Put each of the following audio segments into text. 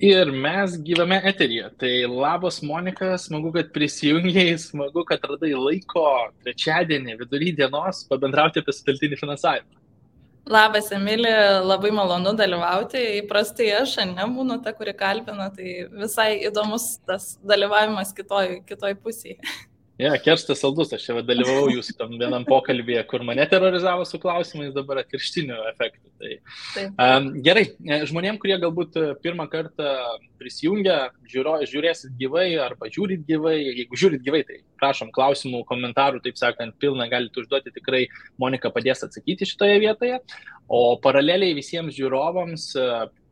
Ir mes gyvame eteryje. Tai labas, Monika, smagu, kad prisijungiai, smagu, kad radai laiko trečiadienį vidury dienos pabendrauti apie sutelktinį finansavimą. Labas, Emilė, labai malonu dalyvauti. Įprastai aš nebūnu ta, kuri kalbina, tai visai įdomus tas dalyvavimas kitoj pusėje. Kerstas saldus, aš čia dalyvavau jūsų tam vienam pokalbėje, kur mane terorizavo su klausimais, dabar atvirkštiniu efektu. Gerai, žmonėm, kurie galbūt pirmą kartą prisijungia, žiūrėsit gyvai arba žiūrit gyvai, jeigu žiūrit gyvai, tai prašom klausimų, komentarų, taip sakant, pilną galite užduoti, tikrai Monika padės atsakyti šitoje vietoje. O paraleliai visiems žiūrovams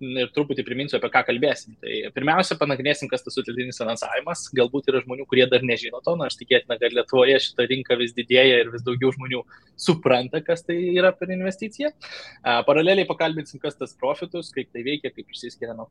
ir truputį priminsiu, apie ką kalbėsim. Tai pirmiausia, panagrinėsim, kas tas sutelktinis finansavimas. Galbūt yra žmonių, kurie dar nežino to, nors tikėtina, kad Lietuvoje šita rinka vis didėja ir vis daugiau žmonių supranta, kas tai yra per investiciją. Paraleliai pakalbėsim, kas tas profitus, kaip tai veikia, kaip išsiskiria nuo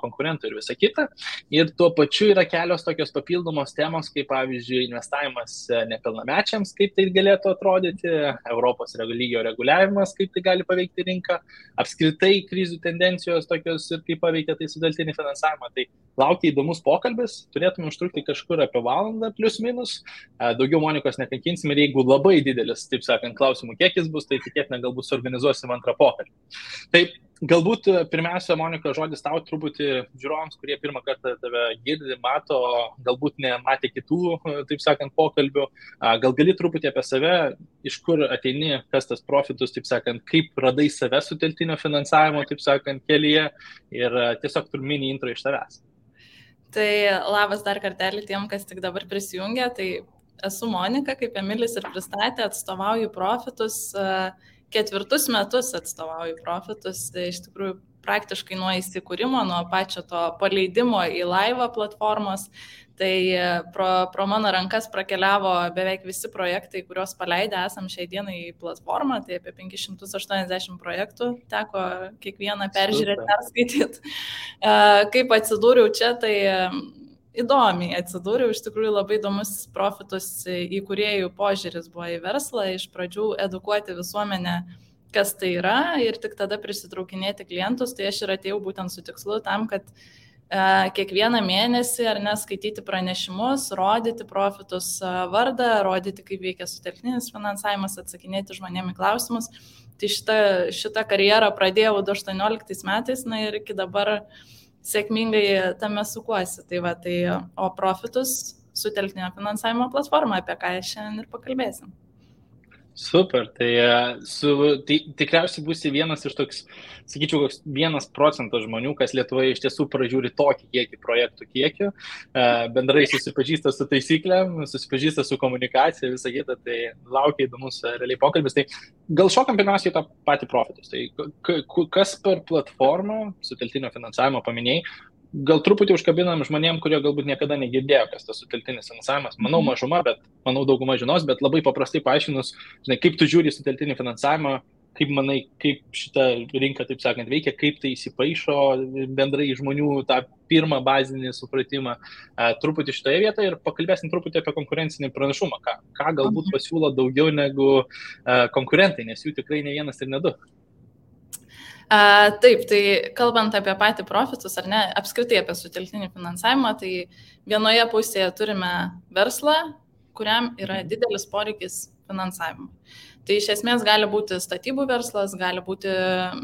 konkurentų ir visa kita. Ir tuo pačiu yra kelios tokios papildomos temos, kaip pavyzdžiui investavimas nepilnamečiams, kaip tai galėtų atrodyti, Europos lygio reguliavimas, kaip tai gali paveikti rinką, apskritai krizių tendencijos tokios ir kaip paveikia tai sutelktinį finansavimą. Tai laukia įdomus pokalbis, turėtume užtrukti kažkur apie valandą plius minus, daugiau Monikos nekankinsim ir jeigu labai didelis, taip sakant, klausimų kiekis bus, tai tikėtina galbūt suorganizuosim antrą pokalbį. Taip, galbūt pirmiausia, Monika, žodis tau truputį žiūrovams, kurie pirmą kartą tave girdi, mato, galbūt nematė kitų, taip sakant, pokalbių. Gal gali truputį apie save, iš kur ateini, kas tas profitus, taip sakant, kaip radai save sutelktinio finansavimo, taip sakant, kelyje ir tiesiog mini intro iš tavęs. Tai labas dar kartelį tiem, kas tik dabar prisijungia. Tai esu Monika, kaip Emilis ir pristatė, atstovauju profitus. 4 metus atstovauju profitus, iš tikrųjų praktiškai nuo įsikūrimo, nuo pačio to paleidimo į laivą platformos. Tai pro mano rankas prakeliavo beveik visi projektai, kuriuos paleidę esam šiai dienai į platformą, tai apie 580 projektų teko kiekvieną peržiūrėti, perskaityti. Kaip atsidūriau čia, tai įdomiai atsidūriau, iš tikrųjų labai įdomus profitus įkūrėjų požiūris buvo į verslą, iš pradžių edukuoti visuomenę, kas tai yra ir tik tada prisitraukinėti klientus, tai aš ir atėjau būtent su tikslu tam, kad kiekvieną mėnesį ar neskaityti pranešimus, rodyti profitus vardą, rodyti, kaip veikia sutelktinis finansavimas, atsakinėti žmonėm į klausimus. Tai šitą karjerą pradėjau 2018 metais, ir iki dabar sėkmingai tame sukuosi. O profitus sutelktinio finansavimo platforma, apie ką šiandien ir pakalbėsim. Super, tai tikriausiai būsi vienas iš toks, sakyčiau, 1% žmonių, kas Lietuvoje iš tiesų pražiūri tokį kiekį projektų kiekių, bendrai susipažįsta su taisyklėm, susipažįsta su komunikacija, visą kitą, tai laukia įdomus realiai pokalbis. Tai gal šokam pirmiausiai tą patį profitus. Tai kas per platformą sutelktinio finansavimo paminėjai? Gal truputį užkabinam žmonėm, kurie galbūt niekada negirdėjo, kas tas sutelktinis finansavimas. Manau mažuma, bet manau dauguma žinos, bet labai paprastai paaiškinus, kaip tu žiūri sutelktinį finansavimą, kaip manai, kaip šita rinka, taip sakant, veikia, kaip tai įsipaišo bendrai žmonių tą pirmą bazinį supratimą. Truputį šitoje vietoje ir pakalbėsim truputį apie konkurencinį pranašumą, ką galbūt pasiūlo daugiau negu konkurentai, nes jų tikrai ne vienas ir ne du. Taip, tai kalbant apie patį profitus, ar ne, apskritai apie sutelktinį finansavimą, tai vienoje pusėje turime verslą, kuriam yra didelis poreikis finansavimo. Tai iš esmės gali būti statybų verslas, gali būti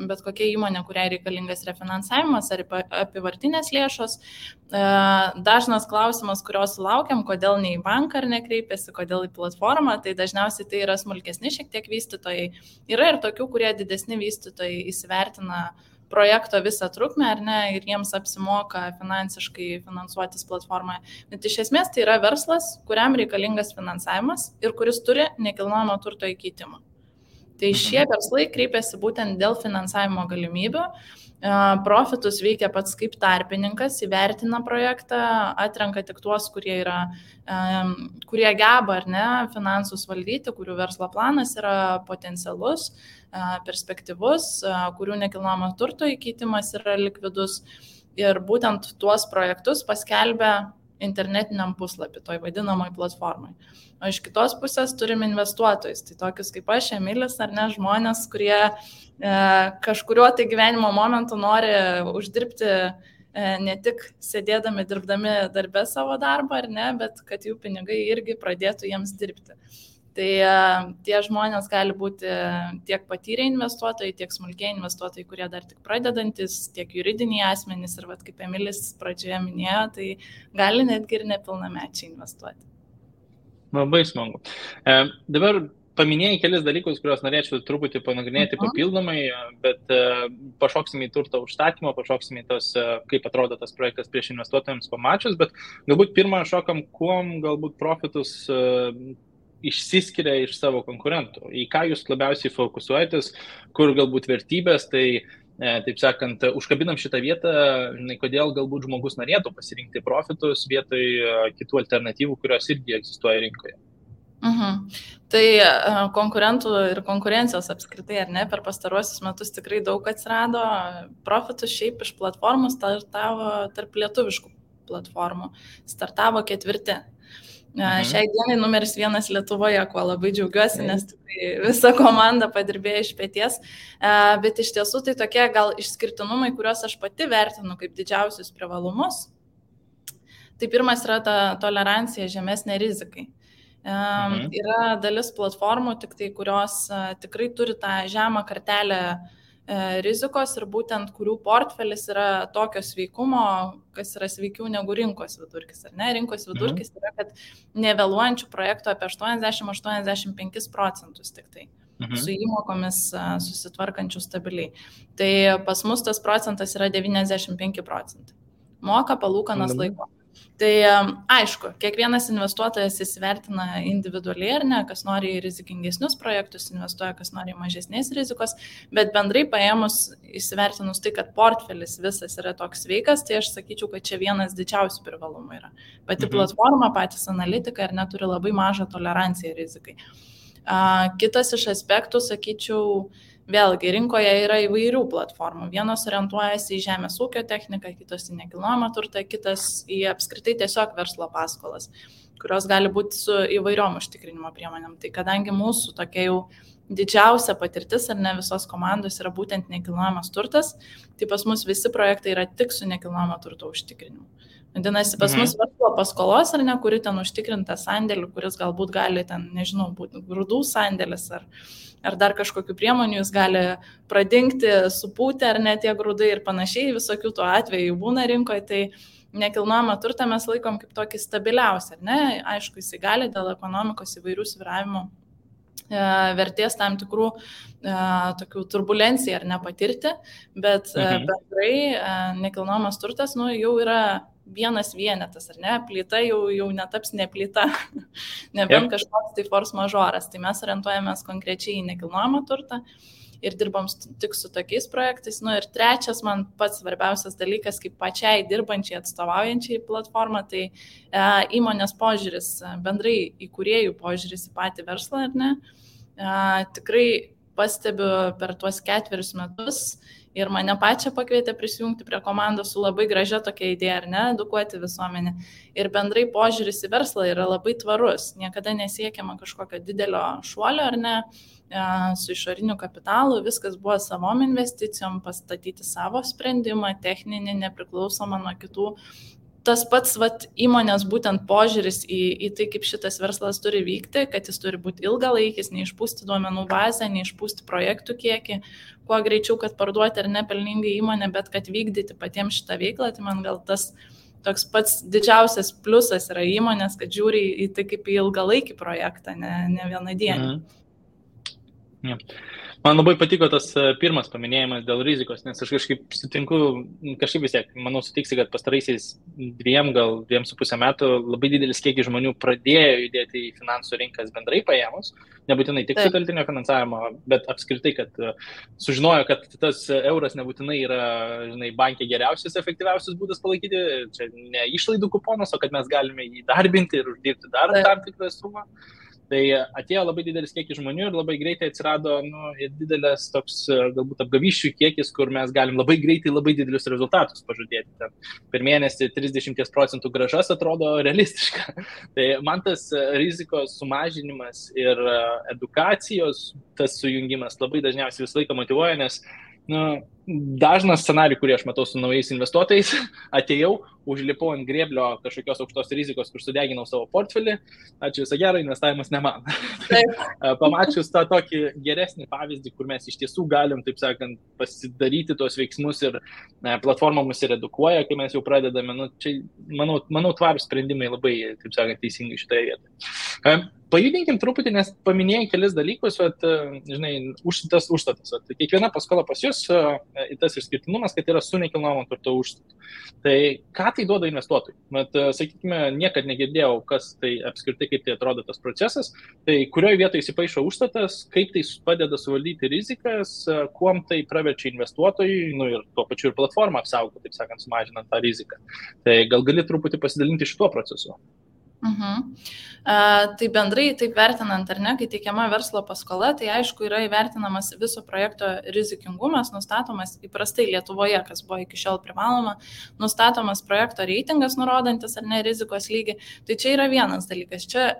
bet kokia įmonė, kuriai reikalingas refinansavimas ar apyvartinės lėšos. Dažnas klausimas, kurios laukiam, kodėl ne į banką ar nekreipiasi, kodėl į platformą, tai dažniausiai tai yra smulkesni šiek tiek vystytojai. Yra ir tokių, kurie didesni vystytojai įsivertina projekto visą trukmę, ar ne, ir jiems apsimoka finansiškai finansuotis platformoje. Bet iš esmės tai yra verslas, kuriam reikalingas finansavimas ir kuris turi nekilnojamo turto įkeitimą. Tai šie verslai kreipiasi būtent dėl finansavimo galimybių. Profitus veikia pats kaip tarpininkas, įvertina projektą, atrenka tik tuos, kurie geba ar ne finansus valdyti, kurių verslo planas yra potencialus, perspektyvus, kurių nekilnojamo turto įkeitimas yra likvidus. Ir būtent tuos projektus paskelbia internetiniam puslapį, toj vadinamoj platformai. O iš kitos pusės turim investuotojus, tai tokius kaip aš, Emilis, ar ne, žmonės, kurie kažkuriuo tai gyvenimo momentu nori uždirbti ne tik sėdėdami, dirbdami darbę savo darbą, ar ne, bet kad jų pinigai irgi pradėtų jiems dirbti. Tai tie žmonės gali būti tiek patyrę investuotojai, tiek smulkiai investuotojai, kurie dar tik pradedantis, tiek juridiniai asmenys ir, kaip Emilis pradžioje minėjo, tai gali netgi ir nepilnamečiai investuoti. Labai smagu. Dabar paminėjai kelis dalykus, kuriuos norėčiau truputį panagrinėti papildomai, bet pašoksime į turto užstatymą, pašoksime į tos, kaip atrodo tas projektas prieš investuotojams pamačius, bet galbūt pirmą šokam, kuom galbūt profitus išsiskiria iš savo konkurentų, į ką jūs labiausiai fokusuojatės, kur galbūt vertybės, tai taip sakant, užkabinam šitą vietą, kodėl galbūt žmogus norėtų pasirinkti profitus vietoj kitų alternatyvų, kurios irgi egzistuoja rinkoje. Tai konkurentų ir konkurencijos apskritai, ar ne, per pastaruosius metus tikrai daug atsirado, profitus šiaip iš platformų startavo tarp lietuviškų platformų, startavo 4. Šiai dienai numeris 1 Lietuvoje, kuo labai džiaugiuosi, nes tikrai visa komanda padirbėjo iš peties, bet iš tiesų tai tokie gal išskirtinumai, kuriuos aš pati vertinu kaip didžiausius privalumus. Tai pirmas yra ta tolerancija žemesnė rizikai. Yra dalis platformų, tik tai, kurios tikrai turi tą žemą kartelę rizikos ir būtent kurių portfelis yra tokio sveikumo, kas yra sveikiau negu rinkos vidurkis. Ar ne? Rinkos vidurkis yra, kad nevėluojančių projektų apie 80-85% tik tai. Su įmokomis susitvarkančių stabiliai. Tai pas mus tas procentas yra 95%. Moka palūkanas laiko. Tai aišku, kiekvienas investuotojas įsivertina individualiai, ar ne, kas nori į rizikingesnius projektus investuoja, kas nori mažesnės rizikos, bet bendrai paėmus įsivertinus tai, kad portfelis visas yra toks sveikas, tai aš sakyčiau, kad čia vienas didžiausių privalumų yra. Pati platforma, patys analitikai ar neturi labai mažą toleranciją rizikai. Kitas iš aspektų, sakyčiau, vėlgi, rinkoje yra įvairių platformų. Vienos orientuojasi į žemės ūkio techniką, kitos į nekilnojamą turtą, kitas į apskritai tiesiog verslo paskolas, kurios gali būti su įvairiom užtikrinimo priemonėm. Tai kadangi mūsų tokia jau didžiausia patirtis ar ne visos komandos yra būtent nekilnojamas turtas, tai pas mus visi projektai yra tik su nekilnojamo turto užtikrinimu. Vadinasi, pas mus verslo paskolos ar ne, kuri ten užtikrinta sandėlių, kuris galbūt gali ten, nežinau, būti grūdų sandėlis ar dar kažkokių priemonių, jis gali pradingti, supūti ar ne tie grūdai ir panašiai, visokių tų atvejų būna rinkoje, tai nekilnojamą turtą mes laikom kaip tokį stabiliausią, ar ne? Aišku, jisai gali dėl ekonomikos įvairių svyravimų vertės tam tikrų tokių turbulencijų ar nepatirti, bet bendrai nekilnojamas turtas jau yra vienas vienetas, ar ne, plyta jau netaps ne plyta, nebent kažkoks tai force majoras, tai mes orientuojamės konkrečiai į nekilnojamą turtą ir dirbam tik su tokiais projektais. Ir trečias man pats svarbiausias dalykas, kaip pačiai dirbančiai atstovaujančiai platformą, tai įmonės požiūris, bendrai įkūrėjų požiūris į patį verslą, ar ne, tikrai pastebiu per tuos 4 metus ir mane pačią pakvietė prisijungti prie komandos su labai gražia tokia idėja, ar ne, edukuoti visuomenę. Ir bendrai požiūris į verslą yra labai tvarus, niekada nesiekiama kažkokio didelio šuolio, ar ne, su išoriniu kapitalu, viskas buvo savom investicijom, pastatyti savo sprendimą, techninį, nepriklausomą nuo kitų. Tas pats įmonės būtent požiūris į tai, kaip šitas verslas turi vykti, kad jis turi būti ilgalaikis, neišpūsti duomenų bazę, neišpūsti projektų kiekį, kuo greičiau, kad parduoti ar nepelningai įmonę, bet kad vykdyti patiems šitą veiklą, tai man gal tas toks pats didžiausias pliusas yra įmonės, kad žiūri į tai kaip į ilgalaikį projektą, ne vieną dieną. Man labai patiko tas pirmas paminėjimas dėl rizikos, nes aš kažkaip vis tiek, manau, sutiksi, kad pastaraisiais 2,5 metų labai didelis kiekis žmonių pradėjo judėti į finansų rinkas bendrai paėmus, nebūtinai tik su teltinio finansavimo, bet apskritai, kad sužinojo, kad tas euras nebūtinai yra, bankė geriausias, efektyviausias būdas palaikyti, čia ne išlaidų kuponas, o kad mes galime jį darbinti ir uždirbti dar tam tikrą sumą. Tai atėjo labai didelis kiekis žmonių ir labai greitai atsirado didelis toks galbūt apgavysčių kiekis, kur mes galim labai greitai labai didelius rezultatus pažadėti. Per mėnesį 30% grąžas atrodo realistiška. Tai man tas rizikos sumažinimas ir edukacijos, tas sujungimas labai dažniausiai visą laiką motyvuoja, nes dažnas scenarijų, kurį aš matau su naujais investuotojais, atėjau, užlipau ant grėblio kažkokios aukštos rizikos, kur sudeginau savo portfelį, ačiū visą gerą, investavimas ne man. Pamačius tą tokį geresnį pavyzdį, kur mes iš tiesų galim, taip sakant, pasidaryti tuos veiksmus ir platforma mus ir edukuoja, kai mes jau pradedame, nu, čia, manau, tvarūs sprendimai labai, taip sakant, teisingai šitoje vietoje. Pajudinkim truputį, nes paminėjai kelis dalykus, žinai, užstatas. Kiekviena paskola pas jūs, tas išskirtinumas, kad yra su nekilnojamo turto užstatu. Tai ką tai duoda investuotojui? Sakykime, niekad negirdėjau, kas tai apskritai, kaip tai atrodo tas procesas. Tai kurioje vietoje įsipaišo užstatas, kaip tai padeda suvaldyti rizikas, kuom tai praverčia investuotojui, nu ir tuo pačiu ir platformą apsaugo, taip sakant, sumažinant tą riziką. Tai gal gali truputį pasidalinti šituo procesu? Tai bendrai taip vertinant, ar ne, kai teikiama verslo paskola, tai aišku yra įvertinamas viso projekto rizikingumas, nustatomas įprastai Lietuvoje, kas buvo iki šiol privaloma, nustatomas projekto reitingas, nurodantis ar ne rizikos lygį. Tai čia yra vienas dalykas. Čia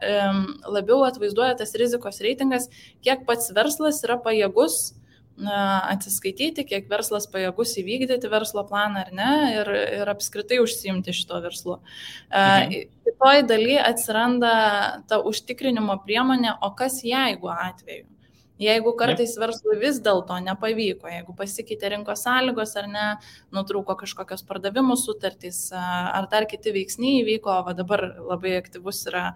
labiau atvaizduoja tas rizikos reitingas, kiek pats verslas yra pajėgus atsiskaityti, kiek verslas pajėgus įvykdyti verslo planą ar ne ir apskritai užsiimti šito verslu. Kitoj daly atsiranda ta užtikrinimo priemonė, o kas jeigu atveju? Jeigu kartais verslui vis dėlto nepavyko, jeigu pasikeitė rinkos sąlygos ar ne, nutrūko kažkokios pardavimų sutartys ar dar kiti veiksniai įvyko, o dabar labai aktyvus yra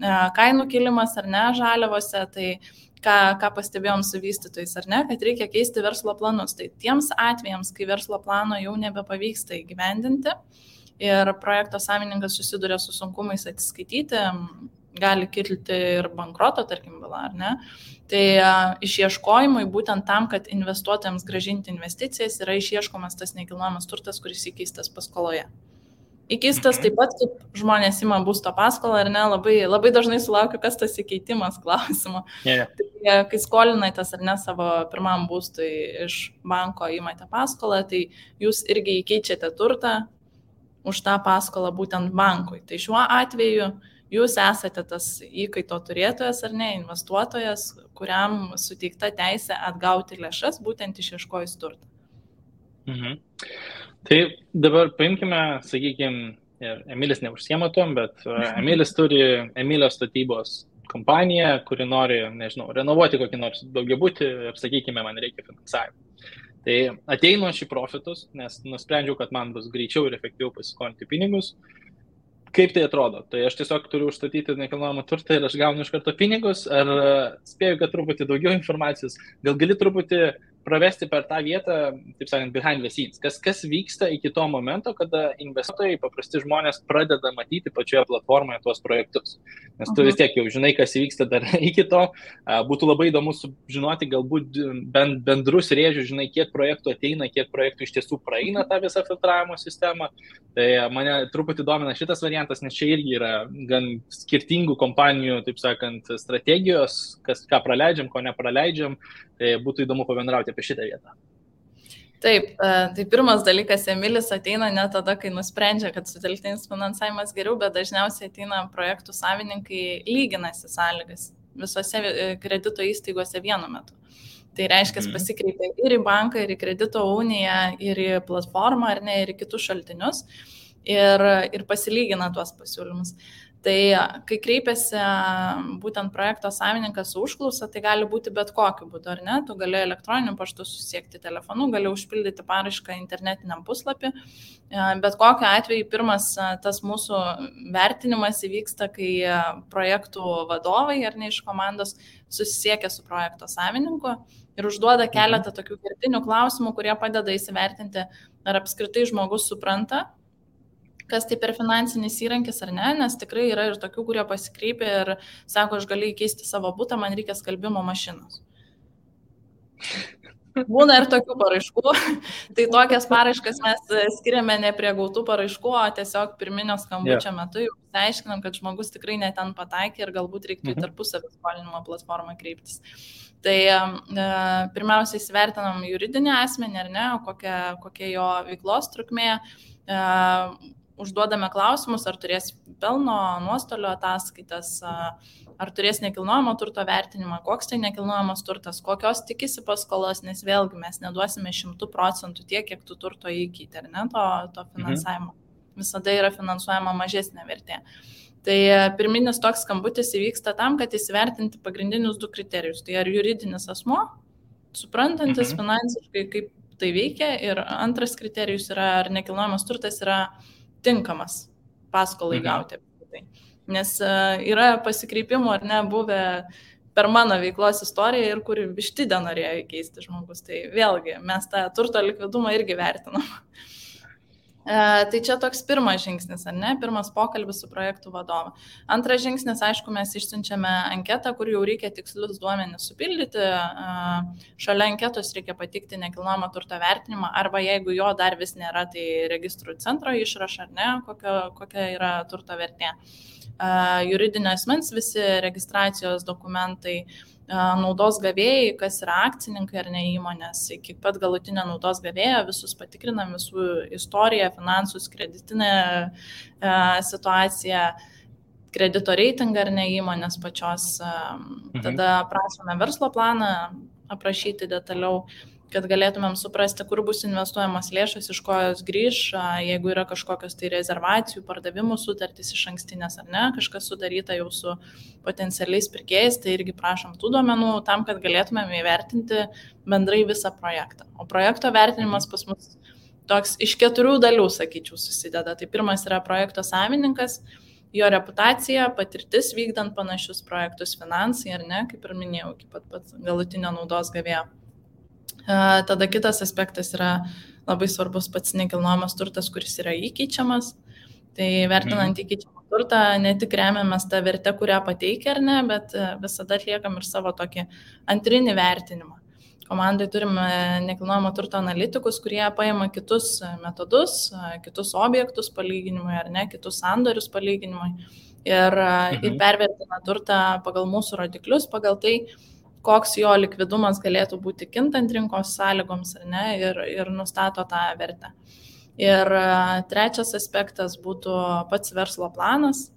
kainų kilimas ar ne žaliavose, tai ką pastebėjom su vystytojais, ar ne, kad reikia keisti verslo planus. Tai tiems atvejams, kai verslo plano jau nebepavyksta įgyvendinti ir projekto savininkas susiduria su sunkumais atsiskaityti, gali kilti ir bankroto, tarkim, byla, ar ne. Tai išieškojimui būtent tam, kad investuotojams grąžinti investicijas, yra išieškomas tas nekilnojamas turtas, kuris įkeistas paskoloje. Įkeistas taip pat, kaip žmonės ima būsto paskolą, ar ne, labai dažnai sulaukiu, kas tas įkeitimas klausimo. Tai, kai skolinatės ar ne savo pirmam būstui iš banko įmate paskolą, tai jūs irgi įkeičiate turtą už tą paskolą būtent bankui. Tai šiuo atveju jūs esate tas įkaito turėtojas ar ne, investuotojas, kuriam suteikta teisė atgauti lėšas būtent išieškojus turtą. Tai dabar paimkime, sakykime, Emilis neužsiema tom, bet Emilis turi Emilio statybos kompaniją, kuri nori, nežinau, renovuoti kokį nors daugiabutį ir, sakykime, man reikia finansavimo. Tai ateinu aš į profitus, nes nusprendžiau, kad man bus greičiau ir efektyviau pasiskolinti pinigus. Kaip tai atrodo? Tai aš tiesiog turiu užstatyti nekilnojamą turtą ir aš gaunu iš karto pinigus, ar spėju, kad truputį daugiau informacijos, gal gali truputį pravesti per tą vietą, taip sakant, behind the scenes. Kas vyksta iki to momento, kada investuotojai, paprasti žmonės pradeda matyti pačioje platformoje tuos projektus. Nes tu vis tiek jau žinai, kas vyksta dar iki to. Būtų labai įdomu sužinoti galbūt bendrus rėžius, žinai, kiek projektų ateina, kiek projektų iš tiesų praeina tą visą filtravimo sistemą. Tai mane truputį domina šitas variantas, nes čia irgi yra gan skirtingų kompanijų, taip sakant, strategijos, ką praleidžiam, ko nepraleidžiam. Tai būtų įdomu pabendrauti apie šitą vietą. Taip, tai pirmas dalykas, Emilis ateina ne tada, kai nusprendžia, kad sutelktinis finansavimas geriau, bet dažniausiai ateina projektų savininkai lyginasi sąlygas visose kredito įstaigose vienu metu. Tai reiškia, pasikreipia ir į banką, ir į kredito uniją, ir į platformą, ar ne, ir į kitus šaltinius ir pasilygina tuos pasiūlymus. Tai kai kreipiasi būtent projekto savininkas su užklausa, tai gali būti bet kokiu būdu, ar ne? Tu gali elektroniniu paštu susiekti telefonu, gali užpildyti paraišką internetiniam puslapį. Bet kokiu atveju pirmas tas mūsų vertinimas įvyksta, kai projektų vadovai ar ne iš komandos susisiekia su projekto savininku ir užduoda keletą tokių kertinių klausimų, kurie padeda įsivertinti, ar apskritai žmogus supranta, kas tai per finansinis įrankis ar ne, nes tikrai yra ir tokių, kurie pasikreipia ir sako, aš galiu įkeisti savo butą, man reikia skalbimo mašinos. Būna ir tokių paraiškų, tai tokias paraiškas mes skiriame ne prie gautų paraiškų, o tiesiog pirminio skambučio metu jau aiškinam, kad žmogus tikrai ne ten pataikė ir galbūt reiktų į tarpusavio skolinimo platformą kreiptis. Tai pirmiausia įsivertinam juridinį asmenį ar ne, kokia jo veiklos trukmė, užduodame klausimus, ar turės pelno, nuostolio ataskaitas, ar turės nekilnojamo turto vertinimą, koks tai nekilnojamas turtas, kokios tikisi paskolos, nes vėlgi mes neduosime 100% tiek, kiek tu turto įkeiti, ar ne, to finansavimo. Visada yra finansuojama mažesnė vertė. Tai pirminis toks skambutis įvyksta tam, kad įsivertinti pagrindinius 2 kriterijus. Tai ar juridinis asmuo, suprantantis finansiškai, kaip tai veikia, ir antras kriterijus yra, ar nekilnojamas turtas yra tinkamas paskolai gauti. Nes yra pasikreipimų ar ne buvę per mano veiklos istoriją ir kur vištidę norėjo įkeisti žmogus. Tai vėlgi, mes tą turto likvidumą irgi vertinam. Tai čia toks pirmas žingsnis, ar ne? Pirmas pokalbis su projektų vadovu. Antras žingsnis, aišku, mes išsiunčiame anketą, kur jau reikia tikslius duomenis supildyti. Šalia anketos reikia patikti nekilnojamo turto vertinimą, arba jeigu jo dar vis nėra, tai registrų centro išrašą, ar ne, kokia yra turto vertė. Juridinio asmens visi registracijos dokumentai, naudos gavėjai, kas yra akcininkai ar ne įmonės, iki pat galutinio naudos gavėjo, visus patikrinam, visų istoriją, finansus, kreditinę situaciją, kredito reitingą ar ne įmonės pačios. Tada prašome verslo planą aprašyti detaliau, kad galėtumėm suprasti, kur bus investuojamas lėšas, iš ko jos grįž, jeigu yra kažkokios tai rezervacijų, pardavimų sutartys iš ankstinės ar ne, kažkas sudaryta jau su potencialiais pirkėjais, tai irgi prašom tų duomenų tam, kad galėtumėm įvertinti bendrai visą projektą. O projekto vertinimas pas mus toks iš 4 dalių, sakyčiau, susideda. Tai pirmas yra projekto savininkas, jo reputacija, patirtis vykdant panašius projektus, finansai ar ne, kaip ir minėjau, iki pat galutinio naudos gavėjo. Tada kitas aspektas yra labai svarbus pats nekilnojamas turtas, kuris yra įkeičiamas. Tai vertinant įkeičiamą turtą, ne tik remiamės tą vertę, kurią pateikia ar ne, bet visada atliekam ir savo tokį antrinį vertinimą. Komandai turime nekilnojamo turto analitikus, kurie paima kitus metodus, kitus objektus palyginimui ar ne, kitus sandorius palyginimui ir pervertina turtą pagal mūsų rodiklius, pagal tai, koks jo likvidumas galėtų būti kintant rinkos sąlygoms ar ne, ir nustato tą vertę. Ir trečias aspektas būtų pats verslo planas,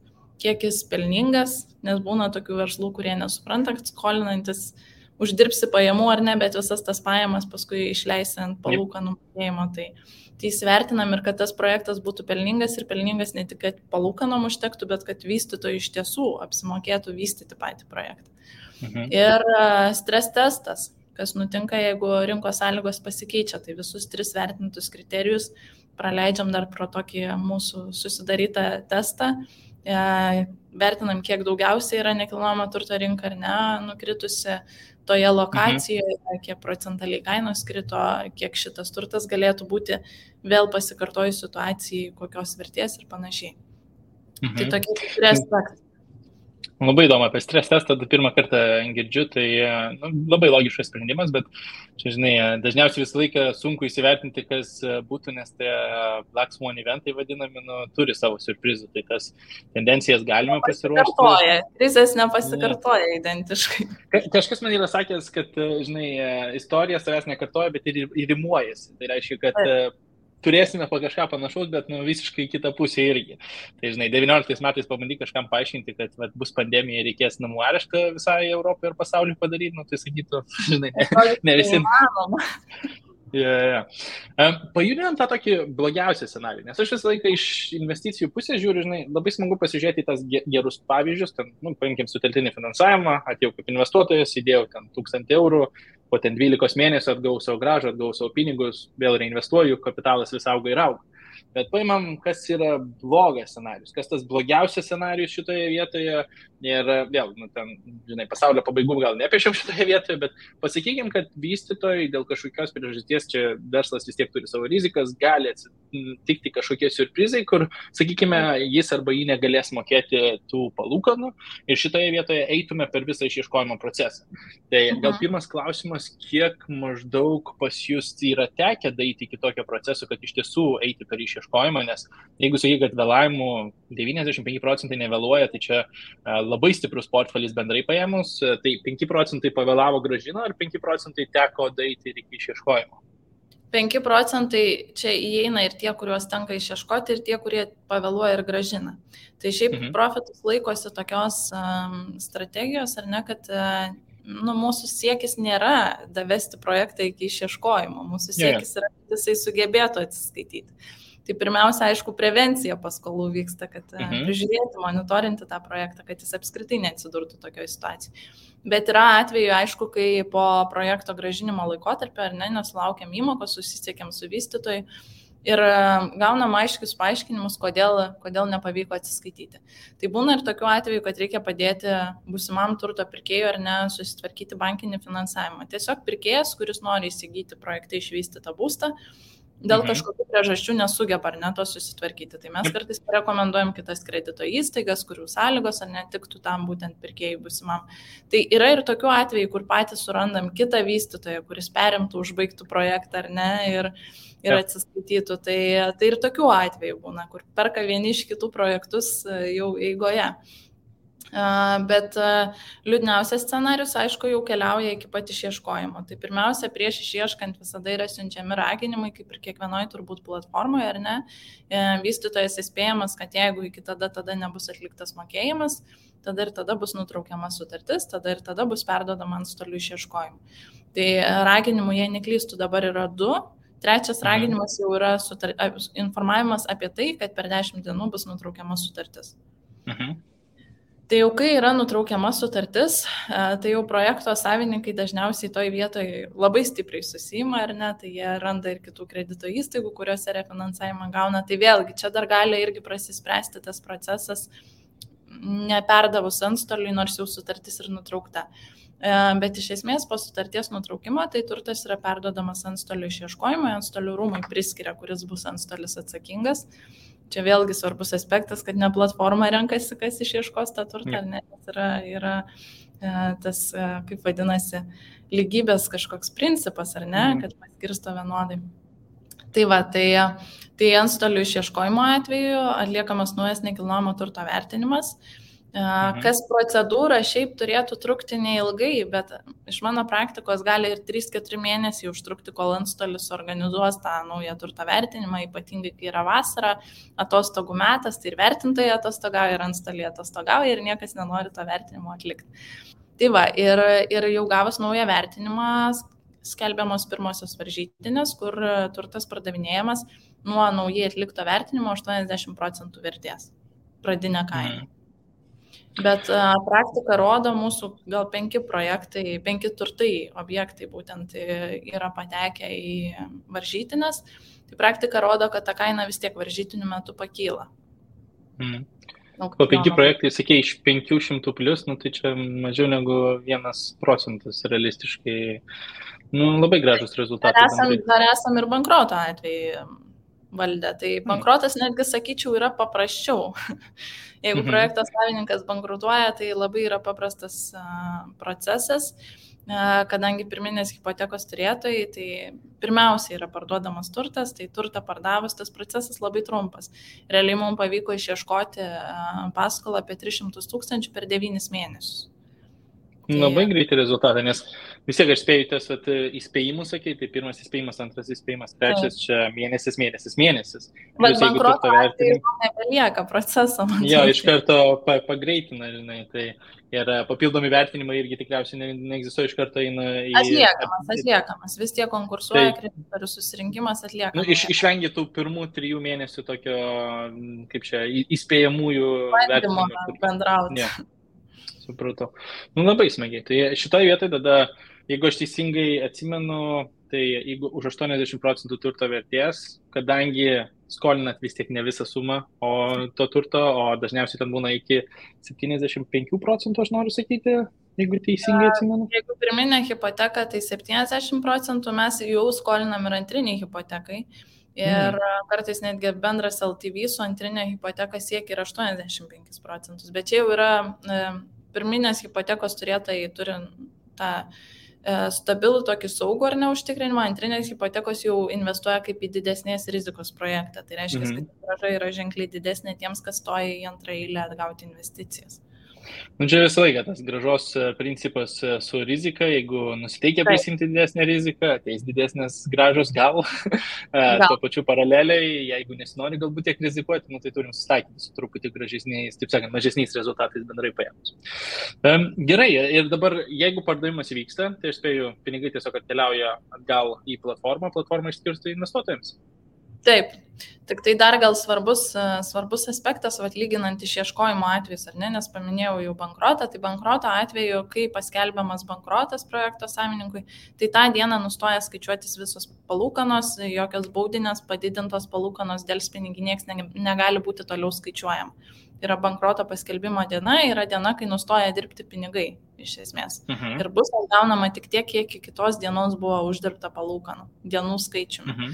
kiek jis pelningas, nes būna tokių verslų, kurie nesupranta, kad skolinantis uždirbsi pajamų ar ne, bet visas tas pajamas paskui išleisi ant palūkanų mokėjimo. Tai įsivertinam ir kad tas projektas būtų pelningas ir pelningas ne tik, kad palūkanom užtektų, bet kad vystytojui iš tiesų apsimokėtų vystyti patį projektą. Ir stres testas, kas nutinka, jeigu rinkos sąlygos pasikeičia, tai visus 3 vertintus kriterijus praleidžiam dar pro tokį mūsų susidarytą testą, vertinam, kiek daugiausiai yra nekilnojamo turto rinka ar ne, nukritusi toje lokacijoje, kiek procentaliai kainos krito, kiek šitas turtas galėtų būti vėl pasikartojus situacijai, kokios vertės ir panašiai. Tai tokie 3 aspektai. Labai įdomu apie stres testą, pirmą kartą girdžiu, tai labai logiškas sprendimas, bet čia, žinai, dažniausiai visą laiką sunku įsivertinti, kas būtų, nes tie Black Swan eventai vadinami, turi savo surprizų, tai tas tendencijas galima pasiruošti. Krizės nepasikartoja identiškai. Kažkas man yra sakęs, kad, žinai, istorija savęs nekartoja, bet ir rimuojasi. Tai reiškia, kad turėsime po kažką panašaus, bet visiškai kitą pusę irgi. Tai, žinai, 19 metais pabandyk kažkam paaiškinti, kad bus pandemija ir reikės namų areštą visai Europai ir pasauliui padaryti, tai sakytų, žinai, ne visi. Pajudinant tą tokį blogiausią scenarijų, nes aš visą laiką iš investicijų pusės žiūriu, žinai, labai smagu pasižiūrėti į tas gerus pavyzdžius, ten, paimkim sutelktinį finansavimą, atėjau kaip investuotojas, įdėjau ten 1000 eurų, po ten 12 mėnesių atgau savo grąžą, atgau savo pinigus, vėl reinvestuoju, kapitalas vis auga ir auga. Bet paimam, kas yra blogas scenarius, kas tas blogiausias scenarius šitoje vietoje ir vėl, ten, žinai, pasaulio pabaigų gal nepiešiam šitoje vietoje, bet pasakykim, kad vystytojai dėl kažkokios priežasties, čia verslas vis tiek turi savo rizikas, gali atsitikti kažkokie surprizai, kur, sakykime, jis arba jį negalės mokėti tų palūkanų ir šitoje vietoje eitume per visą išieškojimo procesą. Tai gal pirmas klausimas, kiek maždaug pas jūs yra tekę daryti iki tokio proceso, kad iš tiesų eiti per išieškojimą, nes jeigu sakai, kad vėlavimų 95% nevėluoja, tai čia labai stiprus portfelis bendrai paėmus, tai 5% pavėlavo grąžino ar 5% teko daryti ir iki išieškojimo? 5 procentai čia įeina ir tie, kuriuos tenka išieškoti, ir tie, kurie pavėluoja ir gražina. Tai šiaip profitus laikosi tokios strategijos, ar ne, kad mūsų siekis nėra davesti projektą iki išieškojimo, mūsų siekis yra, kad jisai sugebėtų atsiskaityti. Tai pirmiausia, aišku, prevencija paskolų vyksta, kad prižiūrėti, monitorinti tą projektą, kad jis apskritai neatsidurtų tokioje situacijoje. Bet yra atveju, aišku, kai po projekto gražinimo laikotarpio ar ne, nesulaukiam įmokos, susisiekėm su vystytoju ir gaunam aiškius paaiškinimus, kodėl nepavyko atsiskaityti. Tai būna ir tokiu atveju, kad reikia padėti būsimam turto pirkėjui ar ne susitvarkyti bankinį finansavimą. Tiesiog pirkėjas, kuris nori įsigyti projekte išvystytą būstą, dėl kažkokių priežasčių nesugeba ar ne to susitvarkyti. Tai mes kartais rekomenduojam kitas kredito įstaigas, kurių sąlygos ar netiktų tam būtent pirkėjui būsimam. Tai yra ir tokių atvejų, kur patys surandam kitą vystytoją, kuris perimtų, užbaigtų projektą ar ne ir atsiskaitytų. Tai ir tokių atvejų būna, kur perka vieni iš kitų projektus jau eigoje. Bet liūdniausias scenarius, aišku, jau keliauja iki pat išieškojimo. Tai pirmiausia, prieš išieškant visada yra siunčiami raginimai, kaip ir kiekvienoje turbūt platformoje, ar ne? Vystytojas įspėjamas, kad jeigu iki tada nebus atliktas mokėjimas, tada ir tada bus nutraukiama sutartis, tada ir tada bus perduodama antstolių išieškojimui. Tai raginimų, jei neklystų, dabar yra 2. Trečias raginimas jau yra informavimas apie tai, kad per 10 dienų bus nutraukiama sutartis. Tai jau kai yra nutraukiama sutartis, tai jau projekto savininkai dažniausiai toj vietoje labai stipriai susima, ar ne, tai jie randa ir kitų kredito įstaigų, kuriuose refinansavimą gauna. Tai vėlgi, čia dar gali irgi prasispręsti tas procesas, neperdavus antstoliui, nors jau sutartis ir nutraukta. Bet iš esmės po sutarties nutraukimo, tai turtas yra perduodamas antstolių išieškojimui, antstolių rūmui priskiria, kuris bus antstolis atsakingas. Čia vėlgi svarbus aspektas, kad ne platforma renkasi, kas išieškos tą turtą, ar ne, yra tas, kaip vadinasi, lygybės kažkoks principas, ar ne, kad paskirsto vienodai. Tai va, tai antstolių išieškojimo atveju atliekamas naujas nekilnojamo turto vertinimas. Kas procedūra šiaip turėtų trukti neilgai, bet iš mano praktikos gali ir 3-4 mėnesiai užtrukti, kol antstolis organizuos tą naują turto vertinimą, ypatingai kai yra vasara, atostogų metas, tai ir vertintojai atostogauja, ir antstoliai atostogauja, ir niekas nenori to vertinimo atlikti. Tai va, ir jau gavus naują vertinimą, skelbiamos pirmosios varžytinės, kur turtas pardavinėjamas nuo naujai atlikto vertinimo 80% vertės, pradinė kaina. Bet praktika rodo, mūsų gal 5 projektai, 5 turtai objektai būtent yra patekę į varžytinės. Tai praktika rodo, kad ta kaina vis tiek varžytinių metu pakyla. Po 5 projektai, sakė, iš 500 plus, tai čia mažiau negu 1% realistiškai. Labai gražus rezultatai. Dar esam ir bankroto atveju valdę. Tai bankrotas netgi, sakyčiau, yra paprasčiau. Jeigu projekto savininkas bankrutuoja, tai labai yra paprastas procesas, kadangi pirminės hipotekos turėtojai, tai pirmiausia yra parduodamas turtas, tai turtą pardavus tas procesas labai trumpas. Realiai mums pavyko išieškoti paskolą apie 300 000 per 9 mėnesius. Labai greitai rezultatą, nes vis tiek aš spėjau tas įspėjimus, sakė, tai pirmas įspėjimas, antras įspėjimas, trečias čia mėnesis. Bet bankroto atveju nebelieka proceso. Jo, iš karto pagreitina, žinai, tai ir papildomi vertinimai irgi tikriausiai neegzistuoja, iš karto eina į... Atliekamas, vis tiek konkursuoja, kreditorių susirinkimas atliekamas. Išvengia tų pirmų 3 mėnesių tokio, kaip čia, įspėjamųjų vertinimų. Bendrauti. Supratau. Labai smagiai. Tai šitoje vietoje tada, jeigu aš teisingai atsimenu, tai jeigu už 80% turto vertės, kadangi skolinat vis tiek ne visą sumą to turto, o dažniausiai ten būna iki 75%, aš noriu sakyti, jeigu teisingai atsimenu. Jeigu pirminė hipoteka, tai 70% mes jau skolinam ir antriniai hipotekai. Ir kartais netgi bendras LTV su antrinė hipoteka siekia ir 85%. Bet čia jau yra pirminės hipotekos turėtojai turi tą stabilų tokį saugų ar neužtikrinimą, antrinės hipotekos jau investuoja kaip į didesnės rizikos projektą. Tai reiškia, kad grąža yra ženkliai didesnė tiems, kas stoja į antrą eilę atgauti investicijas. Nu, čia visą laiką tas gražos principas su rizika, jeigu nusiteikia prisimti didesnę riziką, ateis didesnės gražos gal. Tuo pačiu paraleliai, jeigu nesinori galbūt tiek rizikuoti, nu, tai turim susitaikyti su truputį gražesniais, taip sakant, mažesniais rezultatais bendrai paėmus. Gerai, ir dabar, jeigu pardavimas vyksta, tai aš spėju, pinigai tiesiog atkeliauja atgal į platformą išskirsto investuotojams. Taip, tik tai dar gal svarbus aspektas, lyginant išieškojimo atvejus, ar ne, nes paminėjau jau bankrotą, tai bankroto atveju, kai paskelbiamas bankrotas projekto savininkui, tai tą dieną nustoja skaičiuotis visos palūkanos, jokios baudinės, padidintos palūkanos, delspinigiai nieks negali būti toliau skaičiuojama. Yra bankroto paskelbimo diena, yra diena, kai nustoja dirbti pinigai, iš esmės. Ir bus atgaunama tik tiek, kiek iki kitos dienos buvo uždirbta palūkanų, dienų skaičiumi.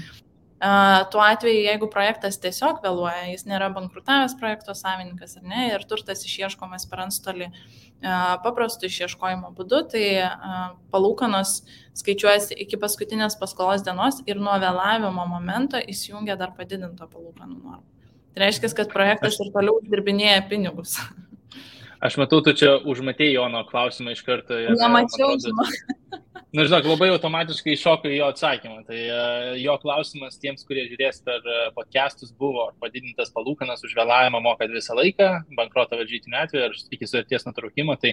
Tuo atveju, jeigu projektas tiesiog vėluoja, jis nėra bankrutavęs projekto savininkas, ar ne, ir turtas išieškomas per antstolį paprastų išieškojimo būdu, tai palūkanos skaičiuojasi iki paskutinės paskolos dienos ir nuo vėlavimo momento įsijungia dar padidinto palūkanų normą. Tai reiškia, kad projektas ir toliau uždirbinėja pinigus. Aš matau, tu čia užmatėjai Jono klausimą iš karto. Nemačiau, Na, žinok, labai automatiškai iššoko į jo atsakymą. Tai jo klausimas tiems, kurie žiūrės per podcastus, buvo, ar padidintas palūkanas už vėlavimą mokat visą laiką, bankroto varžytinių atveju, ar iki sutarties nutraukimo. Tai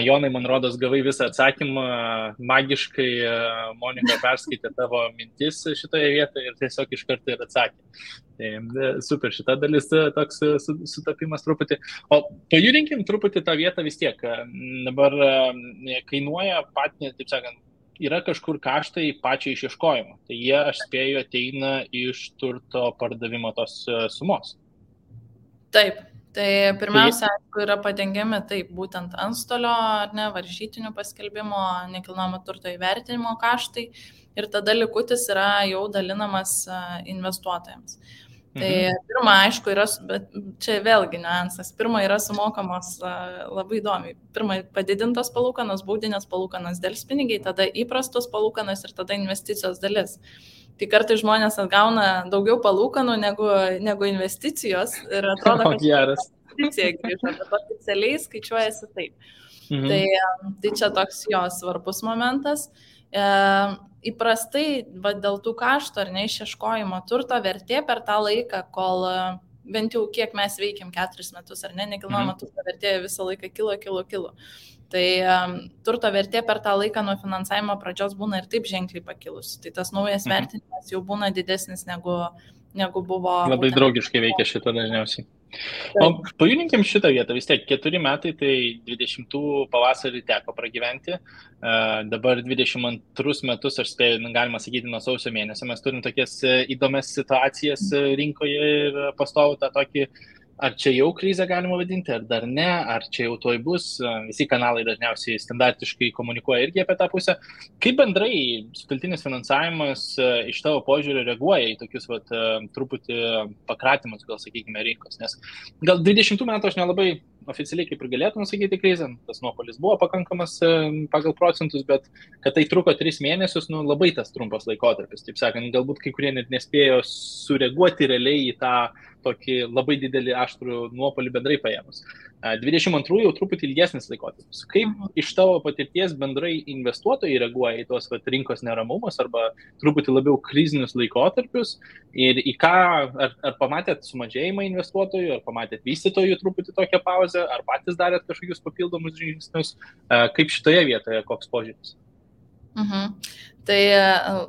Jonai, man rodos, gavai visą atsakymą, magiškai Monika perskaitė tavo mintis šitoje vietoje ir tiesiog iš karto ir atsakė. Tai super, šita dalis toks sutapimas truputį. O pajudinkim truputį tą vietą vis tiek. Dabar kainuoja patį, taip sakant, yra kažkur kaštai pačiai išieškojimo. Tai jie, aš spėju, ateina iš turto pardavimo tos sumos. Taip, tai pirmiausia, aišku, yra padengiami taip, būtent antstolio, ar ne, varžytinių paskelbimo, nekilnojamo turto įvertinimo kaštai ir tada likutis yra jau dalinamas investuotojams. Tai pirma, aišku, yra, bet čia vėlgi niuansas. Pirma yra sumokamos labai įdomiai. Pirma padidintos palūkanos, baudinės palūkanos, delspinigiai, tada įprastos palūkanos ir tada investicijos dalis. Tai kartais žmonės atgauna daugiau palūkanų negu investicijos ir atrodo, kad investicija grįžta, bet oficialiai skaičiuojasi taip. Tai čia toks jo svarbus momentas. Įprastai dėl tų kaštų ar neišieškojimo turto vertė per tą laiką, kol bent jau kiek mes veikiam 4 metus ar ne, nekilnojamo turto vertė visą laiką kilo. Tai turto vertė per tą laiką nuo finansavimo pradžios būna ir taip ženkliai pakilusi. Tai tas naujas vertinimas jau būna didesnis negu buvo. Labai draugiškai veikia šitą dažniausiai. O pajudinkim šitą vietą, vis tiek 4 metai, tai 20 pavasarį teko pragyventi, dabar 22 metus, aš spėju, galima sakyti, nuo sausio mėnesio, mes turim tokias įdomias situacijas rinkoje ir pastovų tą tokį, ar čia jau krizę galima vadinti, ar dar ne, ar čia jau toj bus, visi kanalai dažniausiai standartiškai komunikuoja irgi apie tą pusę. Kaip bendrai sutelktinis finansavimas iš tavo požiūrio reaguoja į tokius truputį pakratimus, gal sakykime, rinkos, nes gal 20 metų aš nelabai oficialiai kaip ir galėtume sakyti krizę, tas nuopolis buvo pakankamas pagal procentus, bet kad tai truko 3 mėnesius, labai tas trumpas laikotarpis, taip sakant, galbūt kai kurie net nespėjo sureaguoti realiai į tą tokį labai didelį aštrų nuopolį bendrai paėmus. 22 jau truputį ilgesnis laikotarpis. Kaip iš tavo patirties bendrai investuotojai reaguoja į tuos rinkos neramumus arba truputį labiau krizinius laikotarpius ir į ką, ar pamatėt sumažėjimą investuotojų, ar pamatėt vystytojų truputį tokią pauzę, ar patys darėt kažkokius papildomus žingsnius, kaip šitoje vietoje, koks požiūris? Tai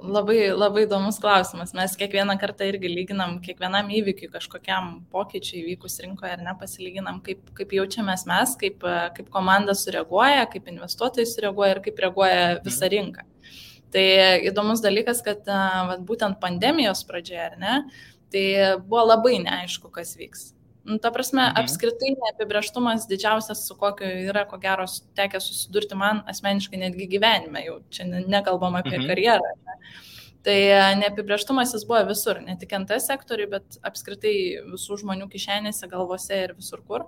labai, labai įdomus klausimas. Mes kiekvieną kartą irgi lyginam, kiekvienam įvykiui kažkokiam pokyčiui įvykus rinkoje ar ne, pasilyginam, kaip jaučiamės mes, kaip komanda sureaguoja, kaip investuotojai sureaguoja ir kaip reaguoja visa rinka. Tai įdomus dalykas, kad būtent pandemijos pradžioje, ar ne, tai buvo labai neaišku, kas vyks. Ta prasme, apskritai neapibrėžtumas didžiausias, su kokiu yra, ko gero, tekę susidurti man asmeniškai netgi gyvenime, jau čia nekalbam apie karjerą. Ne? Tai neapibrėžtumas jis buvo visur, ne tik NT sektoriui, bet apskritai visų žmonių kišenėse, galvose ir visur kur.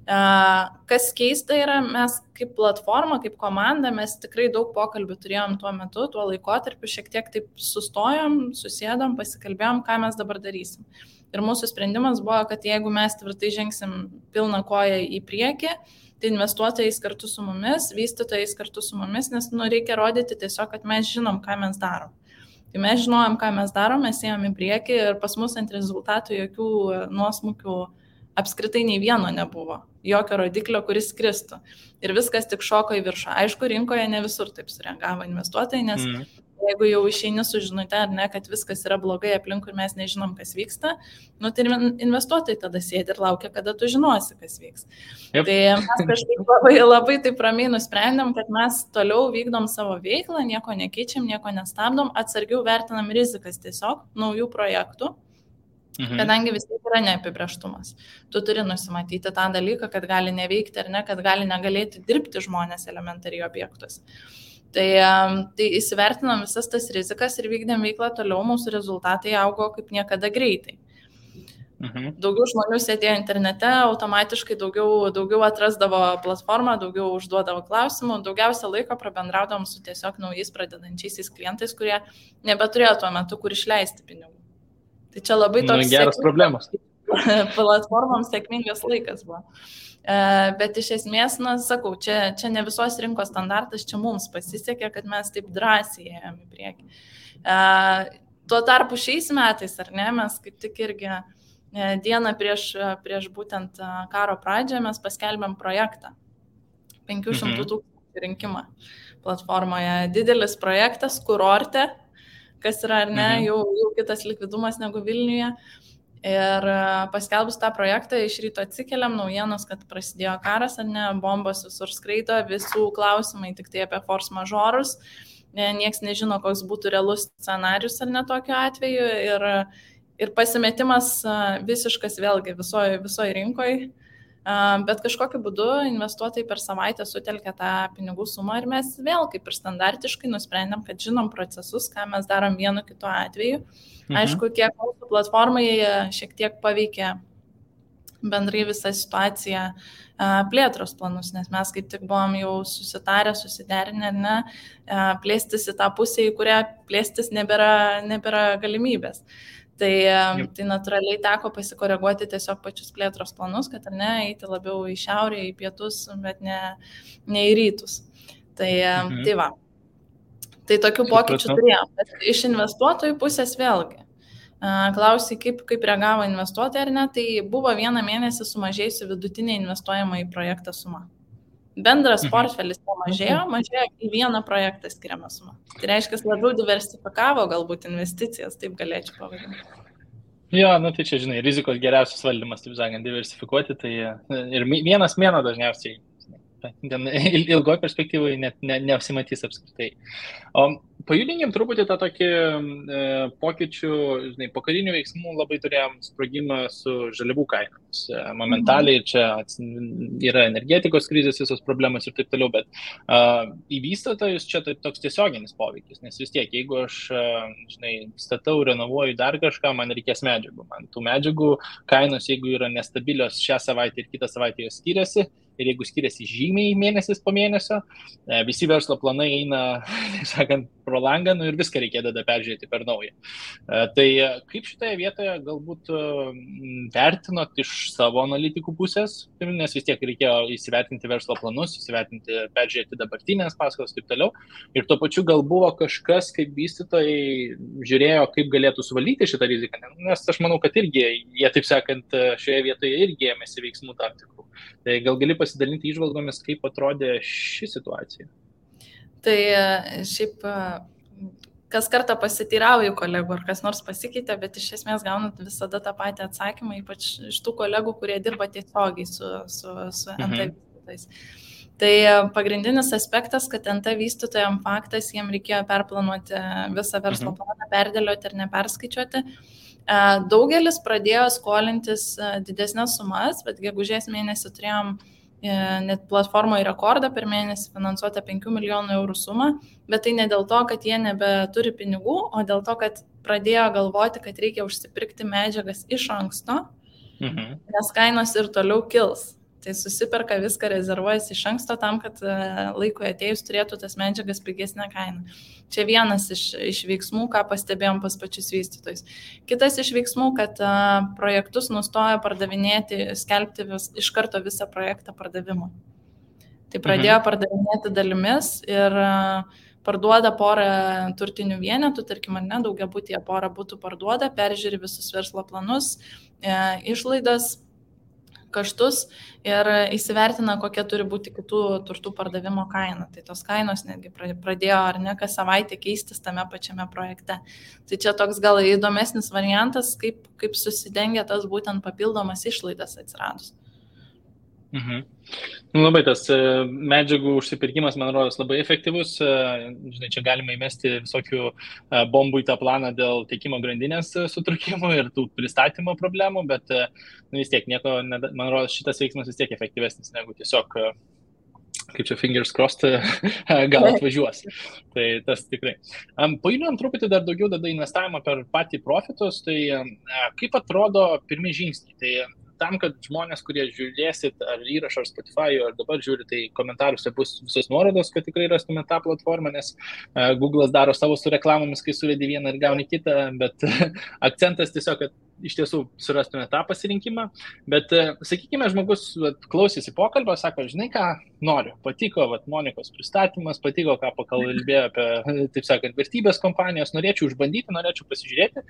Kas keista yra, mes kaip platforma, kaip komanda, mes tikrai daug pokalbių turėjom tuo metu, tuo laikotarpiu, šiek tiek taip sustojom, susėdom, pasikalbėjom, ką mes dabar darysim. Ir mūsų sprendimas buvo, kad jeigu mes tvirtai žengsim pilną koją į priekį, tai investuotojais kartu su mumis, vystytojais kartu su mumis, nes reikia rodyti tiesiog, kad mes žinom, ką mes darom. Tai mes žinojom, ką mes darom, mes ėjom į priekį ir pas mus ant rezultatų jokių nuosmukių apskritai nei vieno nebuvo, jokio rodiklio, kuris kristų. Ir viskas tik šoko į viršų. Aišku, rinkoje ne visur taip sureagavo investuotojai, nes jeigu jau išeini su žinute, ar ne, kad viskas yra blogai aplinkui ir mes nežinom, kas vyksta, tai investuotojai tada sėdi ir laukia, kada tu žinosi, kas vyks. Yep. Tai mes kažkaip labai taip ramiai nusprendėm, kad mes toliau vykdom savo veiklą, nieko nekeičiam, nieko nestabdom, atsargiau vertinam rizikas tiesiog naujų projektų. Kadangi vis tiek yra neapibrėžtumas. Tu turi nusimatyti tą dalyką, kad gali neveikti ar ne, kad gali negalėti dirbti žmonės elementariai objektus. Tai įsivertinom visas tas rizikas ir vykdėm veiklą toliau, mūsų rezultatai augo kaip niekada greitai. Daugiau žmonių sėdėjo internete, automatiškai daugiau atrasdavo platformą, daugiau užduodavo klausimų, daugiausia laiko prabendraudavom su tiesiog naujais pradedančiaisiais klientais, kurie nebeturėjo tuo metu, kur išleisti pinigų. Tai čia labai toks geras problemas. Platformoms sėkmingas laikas buvo. Bet iš esmės, sakau, čia ne visos rinkos standartas, čia mums pasisekė, kad mes taip drąsiai ėjom į priekį. Tuo tarpu šiais metais, ar ne, mes kaip tik irgi dieną prieš būtent karo pradžią mes paskelbėm projektą. 500 000 rinkimą platformoje. Didelis projektas, kurorte, kas yra, ar ne, jau kitas likvidumas negu Vilniuje. Ir paskelbus tą projektą, iš ryto atsikeliam naujienos, kad prasidėjo karas, ar ne, bombos visur skraido, visų klausimai tik tai apie force majeurus. Niekas nežino, koks būtų realus scenarius, ar ne, tokiu atveju. Ir pasimetimas visiškas vėlgi visoje rinkoje. Bet kažkokiu būdu investuotojai per savaitę sutelkė tą pinigų sumą ir mes vėl kaip ir standartiškai nusprendėm, kad žinom procesus, ką mes darom vienu kitu atveju. Aišku, kiek mūsų platformai šiek tiek paveikė bendrai visą situaciją plėtros planus, nes mes kaip tik buvom jau susitarę, susiderinę, ne, plėstis į tą pusę, į kurią plėstis nebėra galimybės. Tai natūraliai teko pasikoreguoti tiesiog pačius plėtros planus, kad ar ne, eiti labiau į šiaurę, į pietus, bet ne į rytus. Tai va. Tai tokių pokyčių turėjom. Bet iš investuotojų pusės vėlgi. Klausai, kaip reagavo investuotojai ar ne, tai buvo vieną mėnesį sumažėjusi vidutinė investuojama į projektą suma. Bendras portfelis mažėjo į vieną projektą skiriamą sumą. Tai reiškia, labiau diversifikavo galbūt investicijas, taip galėčiau pavadinti. Jo, tai čia, žinai, rizikos geriausias valdymas, taip sakant, diversifikuoti, tai ir vienas mėnuo dažniausiai ilgoje perspektyvoje net neapsimatys apskritai. Pajudinkim truputį tą tokį pokyčių, žinai, po karinių veiksmų labai turėjom sprogimą su žaliavų kainomis. Momentaliai čia yra energetikos krizės visos problemos ir taip toliau, bet į vystytojus čia toks tiesioginis poveikis, nes vis tiek, jeigu aš, žinai, statau, renovuoju dar kažką, man reikės medžiagų. Man tų medžiagų kainos, jeigu yra nestabilios šią savaitę ir kitą savaitę jos skiriasi, ir jeigu skiriasi žymiai mėnesis po mėnesio, visi verslo planai eina, sakant, pro langą, ir viską reikėdavo peržiūrėti per naują. Tai kaip šitoje vietoje galbūt vertinot iš savo analitikų pusės, nes vis tiek reikėjo įsivertinti verslo planus, peržiūrėti dabartinės paskolas ir taip toliau. Ir tuo pačiu gal buvo kažkas, kaip vystytojai žiūrėjo, kaip galėtų suvaldyti šitą riziką. Nes aš manau, kad irgi jie, taip sakant, šioje vietoje irgi ėmėsi veiksmų tam tikrų. Tai gal gali pasidalinti įžvalgomis, kaip atrodė ši situacija? Tai šiaip kas kartą pasiteirauju kolegų, ar kas nors pasikeitė, bet iš esmės gaunat visada tą patį atsakymą, ypač iš tų kolegų, kurie dirba tiesiogiai su NT vystytojais. Tai pagrindinis aspektas, kad NT vystytojams faktas, jiems reikėjo perplanuoti visą verslo planą, perdėlioti ir neperskaičiuoti. Daugelis pradėjo skolintis didesnės sumas, bet gegužės mėnesį turėjom net platformoje rekordą per mėnesį finansuotą 5 milijonų eurų sumą, bet tai ne dėl to, kad jie nebeturi pinigų, o dėl to, kad pradėjo galvoti, kad reikia užsipirkti medžiagas iš anksto, nes kainos ir toliau kils. Tai susiperka viską, rezervuojasi iš anksto tam, kad laikui atėjus turėtų tas medžiagas pigesnę kainą. Čia vienas iš veiksmų, ką pastebėjom pas pačius vystytojus. Kitas iš veiksmų, kad projektus nustojo pardavinėti, skelbti iš karto visą projektą pardavimui. Tai pradėjo pardavinėti dalimis ir parduoda porą turtinių vienetų, tarkim, ar ne, daugiabutyje porą būtų parduoda, peržiūri visus verslo planus, išlaidas, kaštus ir įsivertina, kokia turi būti kitų turtų pardavimo kaina. Tai tos kainos netgi pradėjo ar ne kas savaitę keistis tame pačiame projekte. Tai čia toks gal įdomesnis variantas, kaip susidengia tas būtent papildomas išlaidas atsiradus. Labai tas medžiagų užsipirkimas, man rodos, labai efektyvus. Žinai, čia galima įmesti visokių bombų į tą planą dėl tiekimo grandinės sutrukimų ir tų pristatymo problemų, bet vis tiek nieko, man rodos, šitas veiksmas vis tiek efektyvesnis negu tiesiog, kaip čia fingers crossed, gal atvažiuos. Tai tas tikrai. Pajudinam truputį dar daugiau tada investavimą per patį profitus, tai kaip atrodo pirmi žingsniai? Tai tam, kad žmonės, kurie žiūrėsit ar įrašą, ar Spotify, ar dabar žiūri, tai komentaruose bus visos nuorodos, kad tikrai rastume tą platformą, nes Google'as daro savo su reklamomis, kai suvedi vieną ir gauni kitą, bet akcentas tiesiog, kad iš tiesų surastume tą pasirinkimą. Bet, sakykime, žmogus klausėsi pokalbio, sako, žinai ką, noriu, patiko Monikos pristatymas, patiko, ką pakalbėjo apie, taip sakant, vertybės kompanijos, norėčiau išbandyti, norėčiau pasižiūrėti.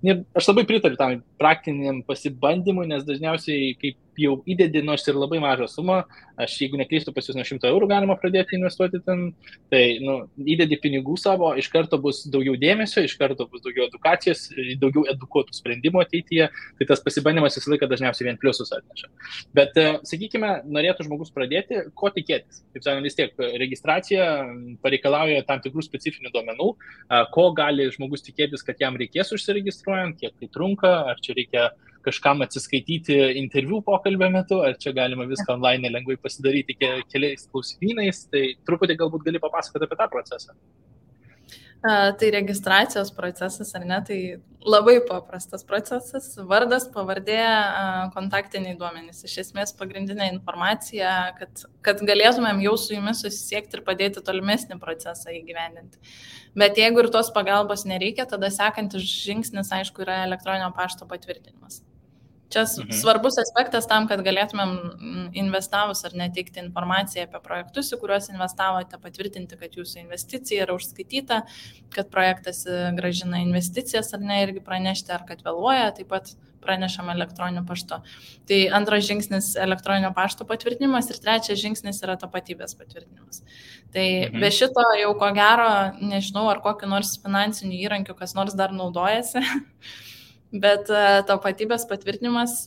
Ir aš labai pritariu tam praktiniam pasibandymui, nes dažniausiai, kaip jau įdedi, nors ir labai mažą sumą, aš jeigu neklystu, pas jūs nuo 100 eurų galima pradėti investuoti ten, tai įdedi pinigų savo, iš karto bus daugiau dėmesio, iš karto bus daugiau edukacijos, daugiau edukuotų sprendimų ateityje, tai tas pasibandymas visą laiką dažniausiai vien pliusus atneša. Bet, sakykime, norėtų žmogus pradėti, ko tikėtis. Taip sakant, vis tiek registracija pareikalauja tam tikrų specifinių duomenų, ko gali žmogus tikėtis, kad jam reikės užsiregistruojant, kiek tai trunka, ar čia reikia kažkam atsiskaityti interviu pokalbio metu, ar čia galima viską online lengvai pasidaryti keliais klausimynais, tai truputį galbūt gali papasakoti apie tą procesą. Tai registracijos procesas, ar ne, tai labai paprastas procesas, vardas, pavardė, kontaktiniai duomenys. Iš esmės pagrindinė informacija, kad galėtumėm jau su jumis susisiekti ir padėti tolimesnį procesą įgyvendinti. Bet jeigu ir tos pagalbos nereikia, tada sekantis žingsnis, aišku, yra elektroninio pašto patvirtinimas. Čia svarbus aspektas tam, kad galėtumėm investavus ar neteikti informaciją apie projektus, į kuriuos investavote, patvirtinti, kad jūsų investicija yra užskaityta, kad projektas grąžina investicijas ar ne, irgi pranešti, ar kad vėluoja, taip pat pranešam elektroniniu paštu. Tai antras žingsnis elektroninio pašto patvirtinimas ir trečias žingsnis yra tapatybės patvirtinimas. Tai be šito jau ko gero, nežinau, ar kokiu nors finansiniu įrankiu kas nors dar naudojasi. Bet tapatybės patvirtinimas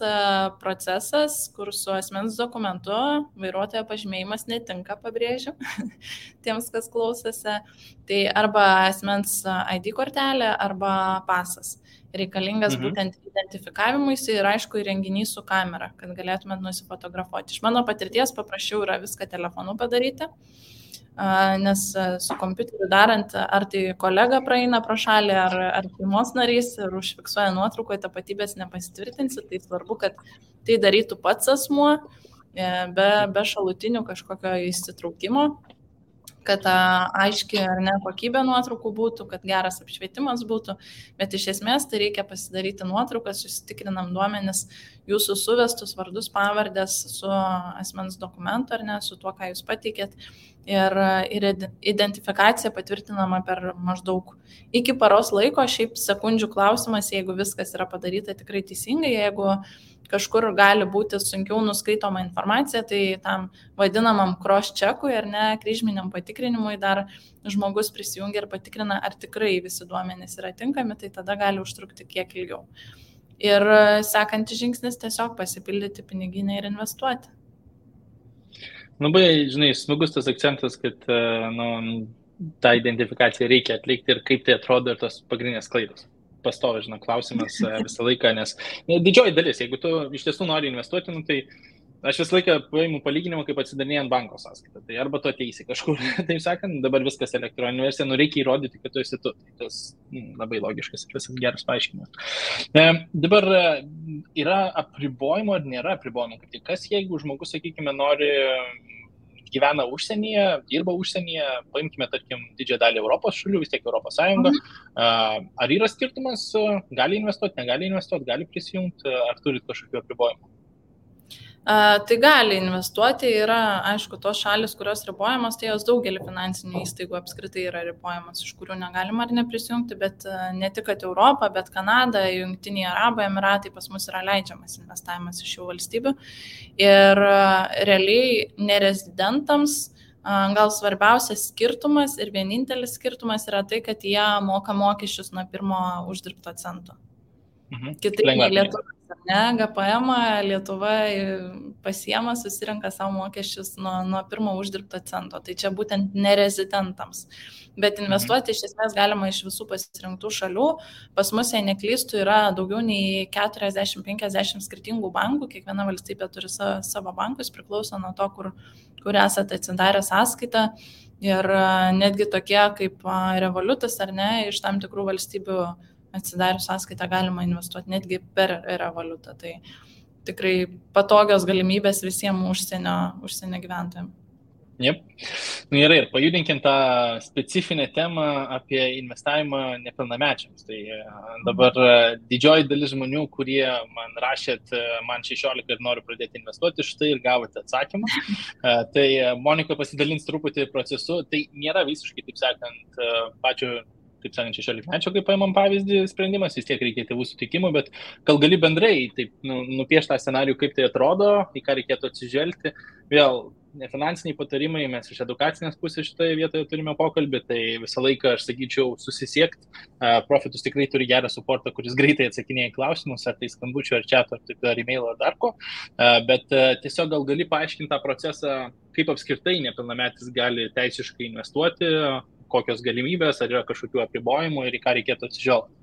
procesas, kur su asmens dokumentu vairuotojo pažymėjimas netinka, pabrėžiu, tiems, kas klausėsi, tai arba asmens ID kortelė, arba pasas. Reikalingas būtent identifikavimuisi ir aišku įrenginys su kamera, kad galėtumėt nusifotografuoti. Iš mano patirties paprašiau yra viską telefonu padaryti, nes su kompiuteriu darant, ar tai kolega praeina pro šalį, ar šeimos narys ir užfiksuoja nuotraukoje, tapatybės nepasitvirtinsi, tai svarbu, kad tai darytų pats asmuo, be šalutinių kažkokio įsitraukimo, kad aiški ar ne kokybė nuotraukų būtų, kad geras apšvietimas būtų, bet iš esmės tai reikia pasidaryti nuotraukas, susitikrinam duomenis, jūsų suvestus vardus, pavardės su asmens dokumentu ar ne, su tuo, ką jūs pateikėt. Ir identifikacija patvirtinama per maždaug iki paros laiko, šiaip sekundžių klausimas, jeigu viskas yra padaryta tikrai teisingai, jeigu kažkur gali būti sunkiau nuskaitoma informacija, tai tam vadinamam cross-checkui ar ne, kryžminiam patikrinimui dar žmogus prisijungia ir patikrina, ar tikrai visi duomenys yra tinkami, tai tada gali užtrukti kiek ilgiau. Ir sekantis žingsnis tiesiog pasipildyti piniginę ir investuoti. Labai, žinai, smagus tas akcentas, kad tą identifikaciją reikia atlikti ir kaip tai atrodo ir tos pagrindinės klaidos. Pastovi, žinai, klausimas visą laiką, nes didžioji dalis, jeigu tu iš tiesų nori investuoti, tai Aš visą laiką paimu palyginimą, kaip atsidarinėjant banko sąskaitą. Tai arba tu ateisi kažkur, taip sakant, dabar viskas elektroninė versija, reikia įrodyti, kad tu esi tu. Tai tas labai logiškas ir visas geras paaiškinimas. Dabar yra apribojimo ar nėra apribojimo? Kas jeigu žmogus, sakykime, gyvena užsienyje, dirba užsienyje, paimkime, tarkim, didžiąją dalį Europos šalių, vis tiek Europos Sąjunga. Ar yra skirtumas, gali investuoti, negali investuoti, gali prisijungti, ar turit kažkokių apribojimų? Tai gali investuoti, yra, aišku, tos šalis, kurios ribojamos, tai jos daugelį finansinių įstaigų apskritai yra ribojamos, iš kurių negalima ar neprisijungti, bet ne tik kad Europą, bet Kanada, Jungtiniai Arabų Emiratai pas mus yra leidžiamas investavimas iš šių valstybių. Ir realiai nerezidentams gal svarbiausias skirtumas ir vienintelis skirtumas yra tai, kad jie moka mokesčius nuo pirmo uždirbto cento. Kitaip nei Lietuva. GPM Lietuva pasiema, susirenka savo mokesčius nuo pirmo uždirbto cento. Tai čia būtent nerezidentams. Bet investuoti iš esmės galima iš visų pasirinktų šalių. Pas mus, jei neklystų, yra daugiau nei 40-50 skirtingų bankų. Kiekviena valstybė turi savo bankus, priklauso nuo to, kur esate atsidarę sąskaitą. Ir netgi tokie kaip Revolutas ar ne, iš tam tikrų valstybių atsidarius sąskaitą galima investuoti netgi per Revolutą. Tai tikrai patogios galimybės visiems užsienio gyventojams. Jep. Gerai, ir pajudinkim tą specifinę temą apie investavimą nepilnamečiams. Tai dabar didžioji dalis žmonių, kurie man rašėt, man 16 ir noriu pradėti investuoti, štai ir gavote atsakymą. Tai Monika pasidalins truputį procesu. Tai nėra visiškai, taip sakant, pačio 16-mečio, kaip paimam pavyzdį, sprendimas, vis tiek reikia tėvų sutikimų, bet gal gali bendrai taip nupiešti tą scenarijų, kaip tai atrodo, į ką reikėtų atsižvelgti. Vėl, nefinansiniai patarimai, mes iš edukacinės pusės šitoje vietoje turime pokalbį, tai visą laiką, aš sakyčiau, susisiekti. Profitus tikrai turi gerą suportą, kuris greitai atsakinėja į klausimus, ar tai skambučių, ar chato, ar e-mailo, ar dar ko. Bet tiesiog gal gali paaiškinti tą procesą, kaip apskritai nepilnametis gali teisiškai investuoti, kokios galimybės, ar yra kažkokių apribojimų ir į ką reikėtų atsižvelgti.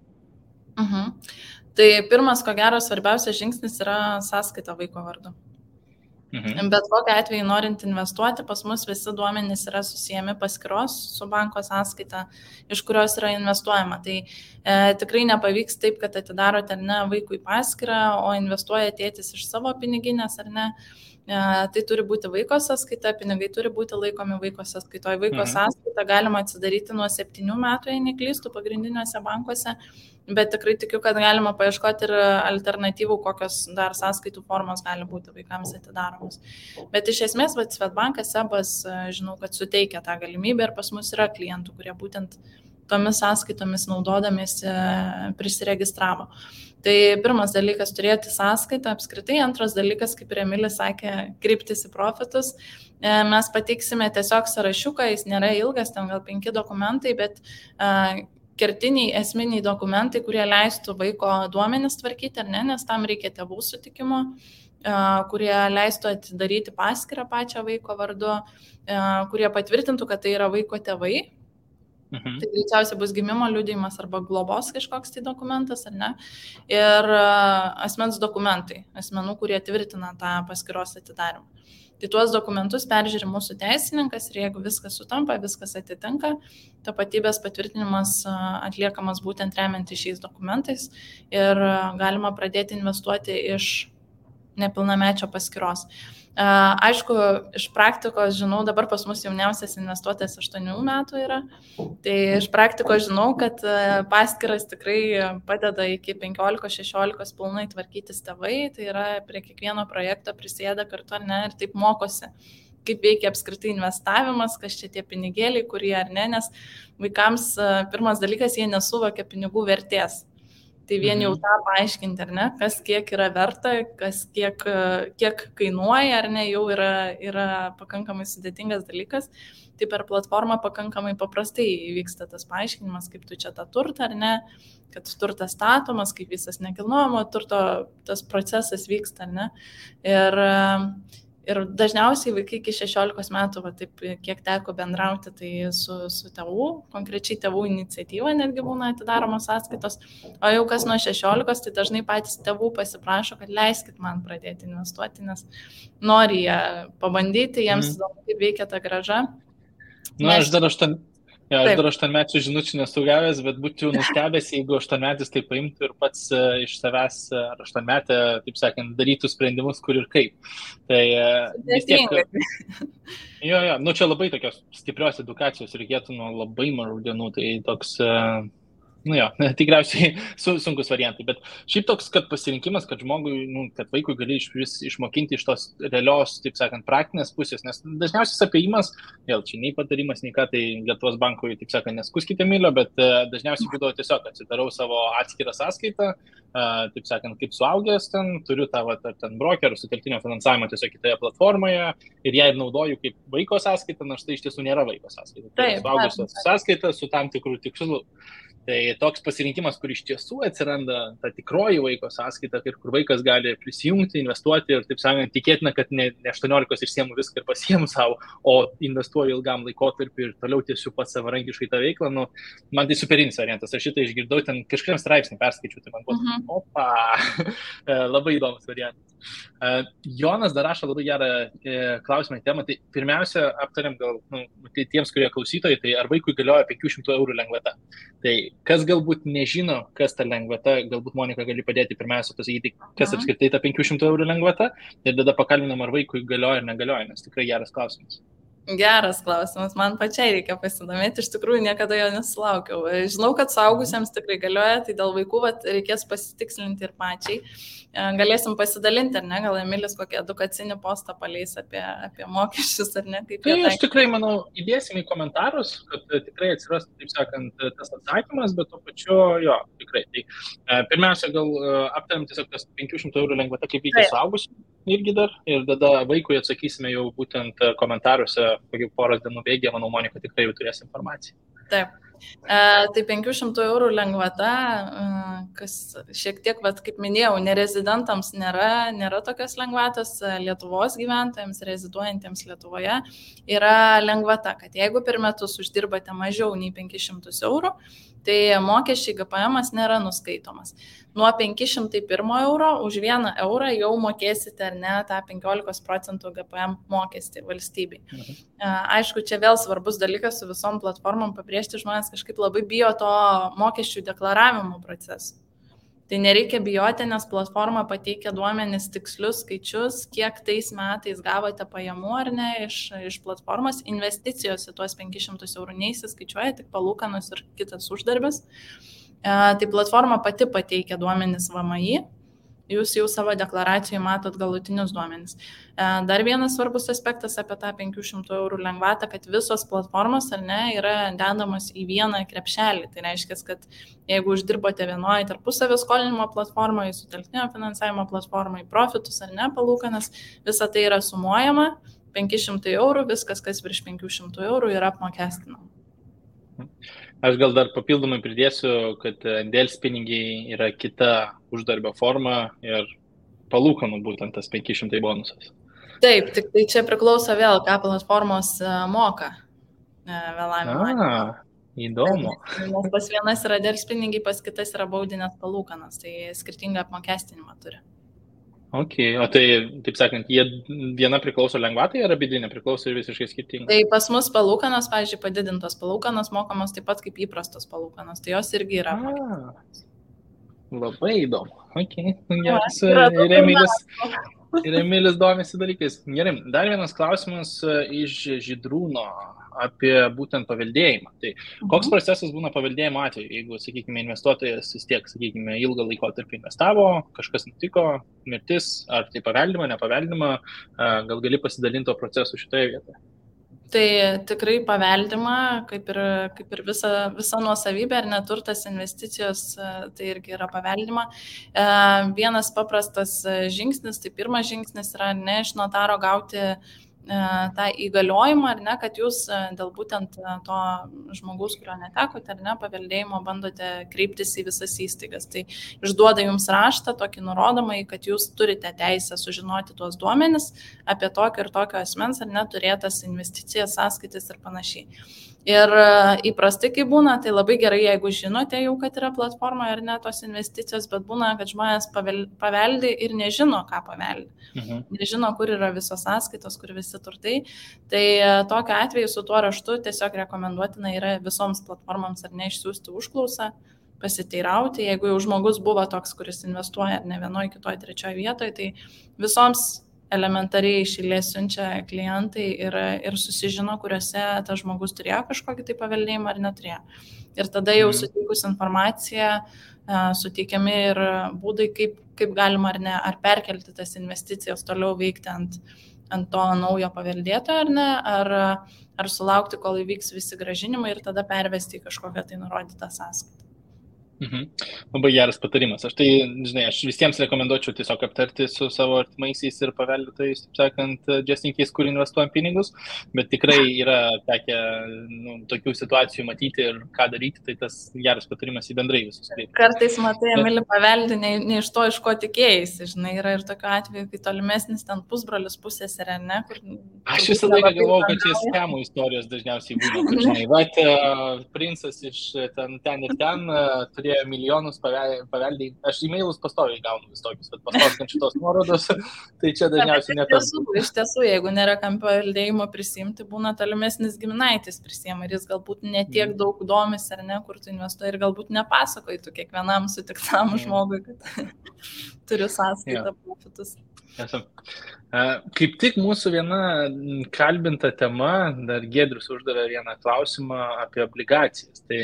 Tai pirmas, ko gero, svarbiausias žingsnis yra sąskaita vaiko vardu. Bet kokiu atveju norint investuoti, pas mus visi duomenys yra susijęmi paskyros su banko sąskaita, iš kurios yra investuojama. Tai tikrai nepavyks taip, kad atidarote ar ne vaikui paskyrą, o investuoja tėtis iš savo piniginės ar ne. Tai turi būti vaiko sąskaita, pinigai turi būti laikomi vaiko sąskaitoje. Vaiko sąskaitą galima atsidaryti nuo 7 metų, jei neklystų, pagrindiniuose bankuose, bet tikrai tikiu, kad galima paieškoti ir alternatyvų, kokios dar sąskaitų formos gali būti vaikams atidaromos. Bet iš esmės, Swedbankas, SEBas, žinau, kad suteikia tą galimybę ir pas mus yra klientų, kurie būtent tomis sąskaitomis naudodamiesi prisiregistravo. Tai pirmas dalykas – turėti sąskaitą apskritai, antras dalykas, kaip ir Emilis sakė, kreiptis į profitus. Mes pateiksime tiesiog sąrašiuką, jis nėra ilgas, ten gal 5 dokumentai, bet kertiniai, esminiai dokumentai, kurie leistų vaiko duomenis tvarkyti, ar ne, nes tam reikia tėvų sutikimo, kurie leistų atidaryti paskyrą pačią vaiko vardu, kurie patvirtintų, kad tai yra vaiko tėvai. Tai greičiausiai bus gimimo liudijimas arba globos kažkoks tai dokumentas, ar ne? Ir asmens dokumentai, asmenų, kurie tvirtina tą paskyros atidarimą. Tai tuos dokumentus peržiūri mūsų teisininkas ir jeigu viskas sutampa, viskas atitinka, tapatybės patvirtinimas atliekamas būtent remiantis šiais dokumentais ir galima pradėti investuoti iš nepilnamečio paskyros. Aišku, iš praktikos žinau, dabar pas mus jauniausias investuotojas 8 metų yra, tai iš praktikos žinau, kad paskyras tikrai padeda iki 15-16 pilnai tvarkytis tėvai, tai yra prie kiekvieno projekto prisėda kartu ar ne ir taip mokosi, kaip veikia apskritai investavimas, kas čia tie pinigėliai, kurie ar ne, nes vaikams pirmas dalykas, jie nesuvokia pinigų vertės. Tai vien jau tą paaiškinti, ar ne, kas kiek yra verta, kas kiek kainuoja, ar ne, jau yra pakankamai sudėtingas dalykas. Tai per platformą pakankamai paprastai vyksta tas paaiškinimas, kaip tu čia tą turtą, ar ne, kad turtas statomas, kaip visas nekilnojamo turto tas procesas vyksta, ar ne. Ir dažniausiai vaikai iki 16 metų, va, taip, kiek teko bendrauti, tai su tėvų, konkrečiai tėvų iniciatyva netgi būna atidaromos sąskaitos, o jau kas nuo 16, tai dažnai patys tėvų pasiprašo, kad leiskit man pradėti investuoti, nes nori jie pabandyti, jiems įdomu, kaip veikia ta grąža. Aš dar 8-mečių žinučių nesugavęs, bet būčiau nustebęs, jeigu 8-metis tai paimtų ir pats iš savęs ar 8-metę, taip sakant, darytų sprendimus, kur ir kaip. Tai vis tiek... Jo, čia labai tokios stiprios edukacijos reikėtų nuo labai mažų dienų, tai toks... tikriausiai sunkus variantai, bet šiaip toks, kad pasirinkimas, kad žmogui, kad vaikui gali išmokinti iš tos realios, taip sakant, praktinės pusės, nes dažniausiai apėjimas, vėl čia nei patarimas, nei ką, tai Lietuvos bankui, taip sakant, neskuskite Emilio, bet dažniausiai būdavo tiesiog atsidarau savo atskirą sąskaitą, taip sakant, kaip suaugęs ten, turiu tą ten brokerų sutelktinio finansavimo tiesiog kitoje platformoje ir ją naudoju kaip vaiko sąskaitą, nors tai iš tiesų nėra vaiko sąskaita. Tai suaugęs sąskaita su tam tikrų tikslų. Tai toks pasirinkimas, kur iš tiesų atsiranda ta tikroji vaiko sąskaita, kur vaikas gali prisijungti, investuoti ir, taip sakant, tikėtina, kad ne 18 išsiemu viską ir pasiemu savo, o investuoju ilgam laikotarpiu ir toliau tiesiog pats savarankiškai tą veiklą. Man tai superinis variantas. Aš šitą išgirdau, ten kažkuriam straipsnį perskaičiu, tai man buvo, labai įdomus variantas. Jonas dar rašo labai gerą klausimą temą. Tai pirmiausia, aptariam gal tai tiems, kurie klausytojai, tai ar vaikui galioja 500 eurų lengvata. Tai kas galbūt nežino, kas ta lengvata, galbūt Monika gali padėti pirmiausia pasakyti, kas apskritai ta 500 eurų lengvata ir tada pakalbinam, ar vaikui galioja ar negalioja, nes tikrai geras klausimas. Geras klausimas, man pačiai reikia pasidomėti, iš tikrųjų niekada jo nesulaukiau. Žinau, kad suaugusiems tikrai galioja, tai dėl vaikų reikės pasitikslinti ir pačiai. Galėsim pasidalinti, ar ne, gal Emilis kokį edukacinį postą paleis apie mokesčius, ar ne? Kaip tai aš tikrai, manau, įdėsim į komentarus, kad tikrai atsiras, taip sakant, tas atsakymas, bet to pačiu, jo, tikrai. Tai pirmiausia, gal aptariam tiesiog tas 500 eurų lengvata, kaip veikia suaugusių irgi dar, ir tada vaikui atsakysime jau būtent komentaruose, kokių poros dienų bėgė, manau, Monika tikrai jau turės informaciją. Taip. Tai 500 eurų lengvata, kas šiek tiek, kaip minėjau, nerezidentams nėra tokios lengvatos, Lietuvos gyventojams, reziduojantiems Lietuvoje yra lengvata, kad jeigu per metus uždirbate mažiau nei 500 eurų, tai mokesčiai GPM nėra nuskaitomas. Nuo 501 euro už 1 eurą jau mokėsite ar ne tą 15% GPM mokestį valstybei. Aišku, čia vėl svarbus dalykas su visom platformom pabrėžti, žmonės kažkaip labai bijo to mokesčių deklaravimo proceso. Tai nereikia bijoti, nes platforma pateikia duomenis tikslius skaičius, kiek tais metais gavote pajamų ar ne iš platformos. Investicijos į tuos 500 eurų neįsiskaičiuoja, tik palūkanos ir kitas uždarbis. Tai platforma pati pateikia duomenis VMI. Jūs jau savo deklaracijoje matot galutinius duomenis. Dar vienas svarbus aspektas apie tą 500 eurų lengvatą, kad visos platformos ar ne yra dedamos į vieną krepšelį. Tai reiškia, kad jeigu uždirbote vienoje tarpusavio skolinimo platformoje, sutelktinio finansavimo platformoje, profitus ar ne, palūkanas, visa tai yra sumuojama, 500 eurų, viskas, kas virš 500 eurų yra apmokestinama. Aš gal dar papildomai pridėsiu, kad delspinigiai yra kita uždarbio forma ir palūkanų būtent tas 500 bonusas. Taip, tik tai čia priklauso vėl, ką platformos moka vėlavimo. Įdomu. Nes pas vienas yra delspinigiai, pas kitas yra baudinės palūkanas, tai skirtingą apmokestinimą turi. Ok, o tai, taip sakant, viena priklauso lengvatai ar abi nepriklauso ir visiškai skirtingai? Tai pas mus palūkanos, pavyzdžiui, padidintos palūkanos mokamos taip pat kaip įprastos palūkanos, tai jos irgi yra apmokestinamos. Labai įdomu. Ok, geras. Ir Emilis domisi dalykais. Gerai, dar vienas klausimas iš Žydrūno apie būtent paveldėjimą. Tai koks procesas būna paveldėjimo atveju, jeigu, sakykime, investuotojas vis tiek, sakykime, ilgą laikotarpį investavo, kažkas nutiko, mirtis, ar tai paveldima, nepaveldima, gal gali pasidalinti to procesu šitoje vietoje? Tai tikrai paveldima, kaip ir visa nuosavybė ar neturtas investicijos, tai irgi yra paveldima. Vienas paprastas žingsnis, tai pirmas žingsnis yra ne iš notaro gauti tą įgaliojimą, ar ne, kad jūs dėl būtent to žmogaus, kurio netekote, ar ne, paveldėjimo bandote kreiptis į visas įstaigas. Tai išduoda jums raštą, tokį nurodomą, kad jūs turite teisę sužinoti tuos duomenis apie tokio ir tokio asmens, ar neturėtas investicijas, sąskaitas ir panašiai. Ir įprastai, kai būna, tai labai gerai, jeigu žinote jau, kad yra platforma ar ne tos investicijos, bet būna, kad žmonės paveldi ir nežino, ką paveldi. Nežino, kur yra visos sąskaitos, kur visi turtai. Tai tokiu atveju su tuo raštu tiesiog rekomenduotina yra visoms platformoms ar ne išsiųsti užklausą, pasiteirauti. Jeigu jau žmogus buvo toks, kuris investuoja ar ne vienoje, kitoje, trečioje vietoje, tai visoms elementariai iš eilės siunčia klientai ir susižino, kuriuose tas žmogus turėjo kažkokį tai paveldėjimą ar neturėjo. Ir tada jau suteikus informaciją, suteikiami ir būdai, kaip galima ar ne, ar perkelti tas investicijas toliau veikti ant to naujo paveldėtojo ar ne, ar sulaukti, kol įvyks visi grąžinimai ir tada pervesti į kažkokią tai nurodytą sąskaitą. Labai geras patarimas. Aš visiems rekomenduočiau tiesiog aptarti su savo artimaisiais ir paveldėtojais, taip sakant, just in case, kur investuojam pinigus, bet tikrai yra tekę tokių situacijų matyti ir ką daryti, tai tas geras patarimas į bendrai visus. Kartais matai, Emilį, paveldi ne iš to, iš ko tikėjai, žinai, yra ir tokiu atveju, kai tolimesnis ten pusbrolis, pusseserė, ne? Aš visą laiką galvojau, kad čia skemų istorijos dažniausiai būna. Žinai, bet princas iš ten ir ten turėjo milijonus paveldėjai. Aš e-mailus pastoviai gaunu vis tokius, bet pastoviai šitos nuorodos, tai čia dažniausiai netas. Iš tiesų, jeigu nėra kam paveldėjimo prisimti, būna tolimesnis giminaitis prisima ir jis galbūt netiek daug domis ar ne, kur tu investuoji ir galbūt nepasakoji tu kiekvienam sutiktam žmogui, kad turiu sąskaitą profitus. Kaip tik mūsų viena kalbinta tema, dar Giedrius uždavė vieną klausimą apie obligacijas. Tai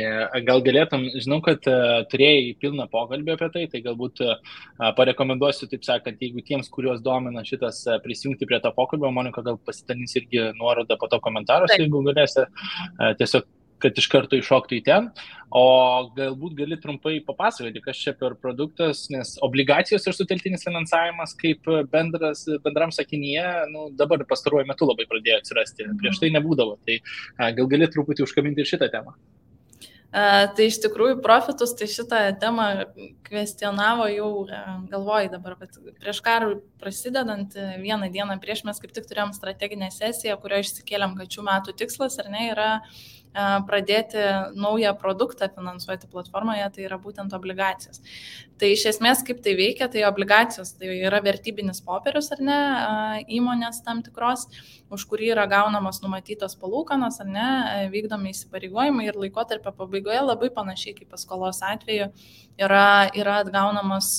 gal galėtum, žinau, kad turėjai pilną pokalbį apie tai galbūt parekomenduosiu, taip sakant, jeigu tiems, kuriuos domina šitas prisijungti prie to pokalbio, Monika gal pasidalins irgi nuorodą po to komentaruose, jeigu galėsi tiesiog kad iš karto iššoktų į ten, o galbūt gali trumpai papasakoti, kas čia per produktas, nes obligacijos ir sutelktinis finansavimas kaip bendram sakinyje, dabar pastaruoju metu labai pradėjo atsirasti, prieš tai nebūdavo, tai gal gali truputį užkabinti ir šitą temą. Tai iš tikrųjų profitus, tai šitą temą kvestionavo jau, galvoju dabar, kad prieš karui prasidedant vieną dieną prieš mes kaip tik turėjom strateginę sesiją, kurioje išsikėlėm, kad šių metų tikslas, ar ne, yra pradėti naują produktą finansuoti platformoje, tai yra būtent obligacijos. Tai iš esmės, kaip tai veikia, tai obligacijos, tai yra vertybinis popierius, ar ne, įmonės tam tikros, už kurį yra gaunamos numatytos palūkanos, ar ne, vykdomi įsipareigojimai ir laikotarpio pabaigoje labai panašiai kaip paskolos atveju yra atgaunamos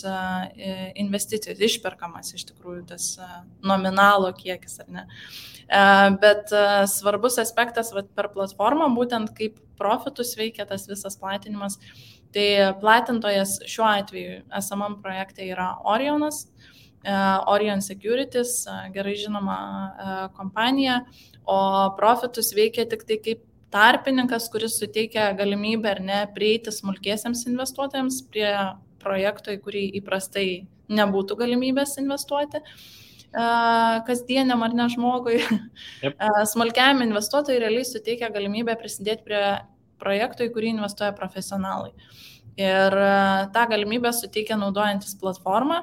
investicijos, išperkamas iš tikrųjų tas nominalo kiekis, ar ne. Bet svarbus aspektas per platformą, būtent kaip profitus veikia tas visas platinimas, tai platintojas šiuo atveju esamam projekte yra Orionas, Orion Securities, gerai žinoma kompanija, o profitus veikia tik tai kaip tarpininkas, kuris suteikia galimybę ar ne prieiti smulkiesiams investuotojams prie projekto, į kurį įprastai nebūtų galimybės investuoti. Kasdieniam ar ne žmogui. Yep. Smulkiam investuotojui realiai suteikia galimybę prisidėti prie projektų, į kurį investuoja profesionalai. Ir tą galimybę suteikia naudojantis platformą,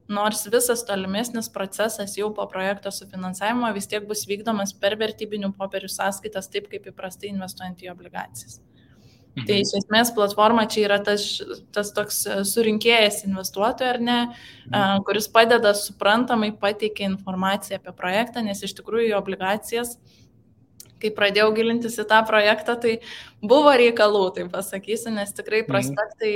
nors visas tolimesnis procesas jau po projekto sufinansavimo vis tiek bus vykdomas per vertybinių popierių sąskaitas, taip kaip įprastai investuojant į obligacijas. Tai iš esmės platforma čia yra tas toks surinkėjas investuotojų, ar ne, kuris padeda suprantamai pateikia informaciją apie projektą, nes iš tikrųjų obligacijas, kai pradėjau gilintis į tą projektą, tai buvo reikalų, tai pasakysiu, nes tikrai prospektai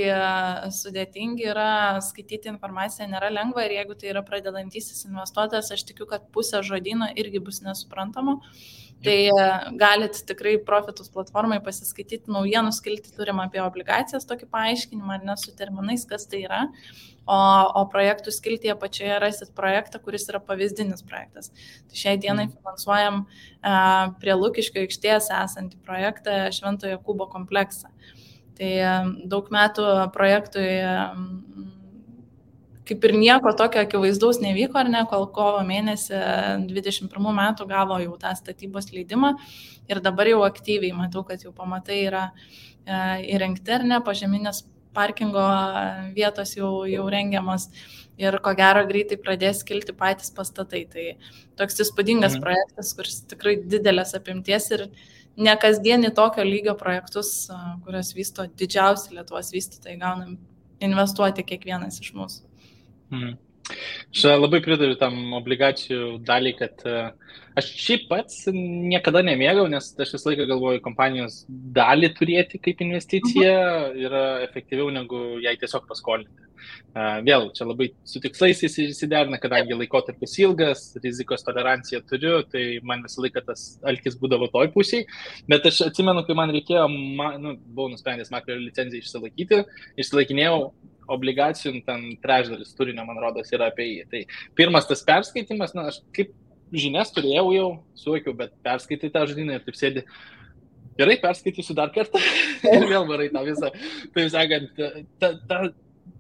sudėtingi yra, skaityti informaciją nėra lengva ir jeigu tai yra pradedantysis investuotojas, aš tikiu, kad pusė žodyno irgi bus nesuprantama. Tai galit tikrai profitus platformai pasiskaityti naujienų skiltį turim apie obligacijas, tokį paaiškinimą, ar ne su terminais, kas tai yra. O projektų skiltyje pačioje rasit projektą, kuris yra pavyzdinis projektas. Tai šiai dienai finansuojam prie Lukiškių aikštės esantį projektą Šventojo Jokūbo kompleksą. Tai daug metų projektui kaip ir nieko tokio akivaizdaus nevyko, ar ne, kol kovo mėnesį 21 metų gavo jau tą statybos leidimą ir dabar jau aktyviai matau, kad jau pamatai yra įrengti, ar ne, požeminės parkingo vietos jau rengiamas ir ko gero greitai pradės kilti patys pastatai. Tai toks įspūdingas projektas, kuris tikrai didelės apimties ir ne kasdienį tokio lygio projektus, kurios vysto didžiausi Lietuvos vystytojai, gaunam investuoti kiekvienas iš mūsų. Aš labai pritariu tam obligacijų daliai, kad aš šiaip pats niekada nemėgau, nes aš visą laiką galvoju, kompanijos dalį turėti kaip investicija yra efektyviau negu jai tiesiog paskolinti. Vėl, čia labai su tikslais įsiderina, kadangi laikotarpis ilgas, rizikos toleranciją turiu, tai man visą laiką tas alkis būdavo toj pusėj, bet aš atsimenu, kai man reikėjo, buvau nusprendęs makro licenciją išsilaikinėjau obligacijų, ten trečdalis turinio, man rodos, yra apie jį. Tai pirmas tas perskaitimas, aš kaip žinias turėjau jau, suvokiau, bet perskaitai tą žodinę ir taip sėdi, gerai, perskaitysiu dar kartą ir vėl varai tą visą. Taip sakant,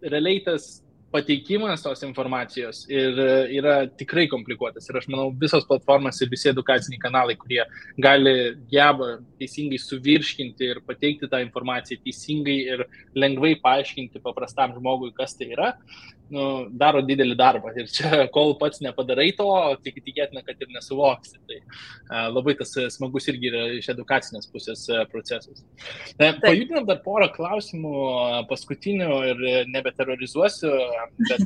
realiai tas pateikimas tos informacijos ir yra tikrai komplikuotas. Ir aš manau, visos platformos ir visi edukaciniai kanalai, kurie geba teisingai suvirškinti ir pateikti tą informaciją teisingai ir lengvai paaiškinti paprastam žmogui, kas tai yra, daro didelį darbą. Ir čia, kol pats nepadarai to, tik tikėtina, kad ir nesuvoksi. Tai labai tas smagus irgi yra iš edukacinės pusės procesas. Pajudinam dar porą klausimų paskutinių ir nebeterrorizuosiu, bet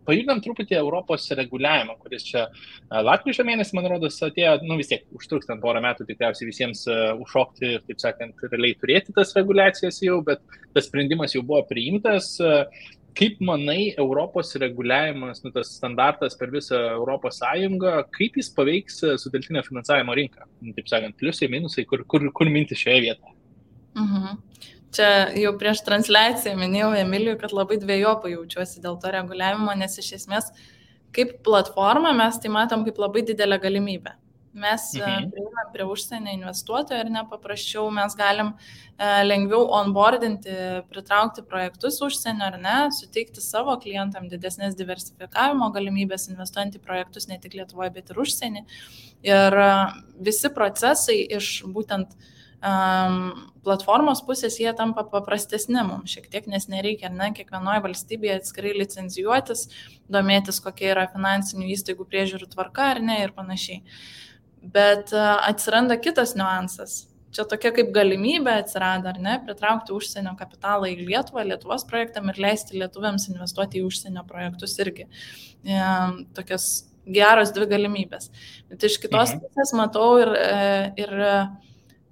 pajudinam truputį Europos reguliavimą, kuris čia lapkričio mėnesį, man rodos, atėjo, vis tiek užtruks ten porą metų tikriausiai visiems užšokti ir, taip sakant, realiai turėti tas reguliacijas jau, bet tas sprendimas jau buvo priimtas. Kaip manai, Europos reguliavimas, tas standartas per visą Europos Sąjungą, kaip jis paveiks sutelktinio finansavimo rinką? Taip sakant, pliusai, minusai, kur mintis šioje vietoje? Čia jau prieš transliaciją minėjau Emilijui, kad labai dvejopai jaučiuosi dėl to reguliavimo, nes iš esmės kaip platforma mes tai matom kaip labai didelę galimybę. Mes prieinam prie užsienio investuotojų ir nepaprasčiau mes galim lengviau onboardinti, pritraukti projektus užsienio ar ne, suteikti savo klientam didesnės diversifikavimo galimybės investuojant į projektus ne tik Lietuvoje, bet ir užsienį. Ir visi procesai iš būtent platformos pusės jie tampa paprastesni mums šiek tiek, nes nereikia, kiekvienoje valstybėje atskirai licencijuotis, domėtis, kokia yra finansinių įstaigų priežiūrų tvarka ar ne ir panašiai. Bet atsiranda kitas niuansas. Čia tokia kaip galimybė atsirado, ar ne, pritraukti užsienio kapitalą į Lietuvą, Lietuvos projektam ir leisti lietuviams investuoti į užsienio projektus irgi. Tokios geros dvi galimybės. Bet iš kitos pusės matau ir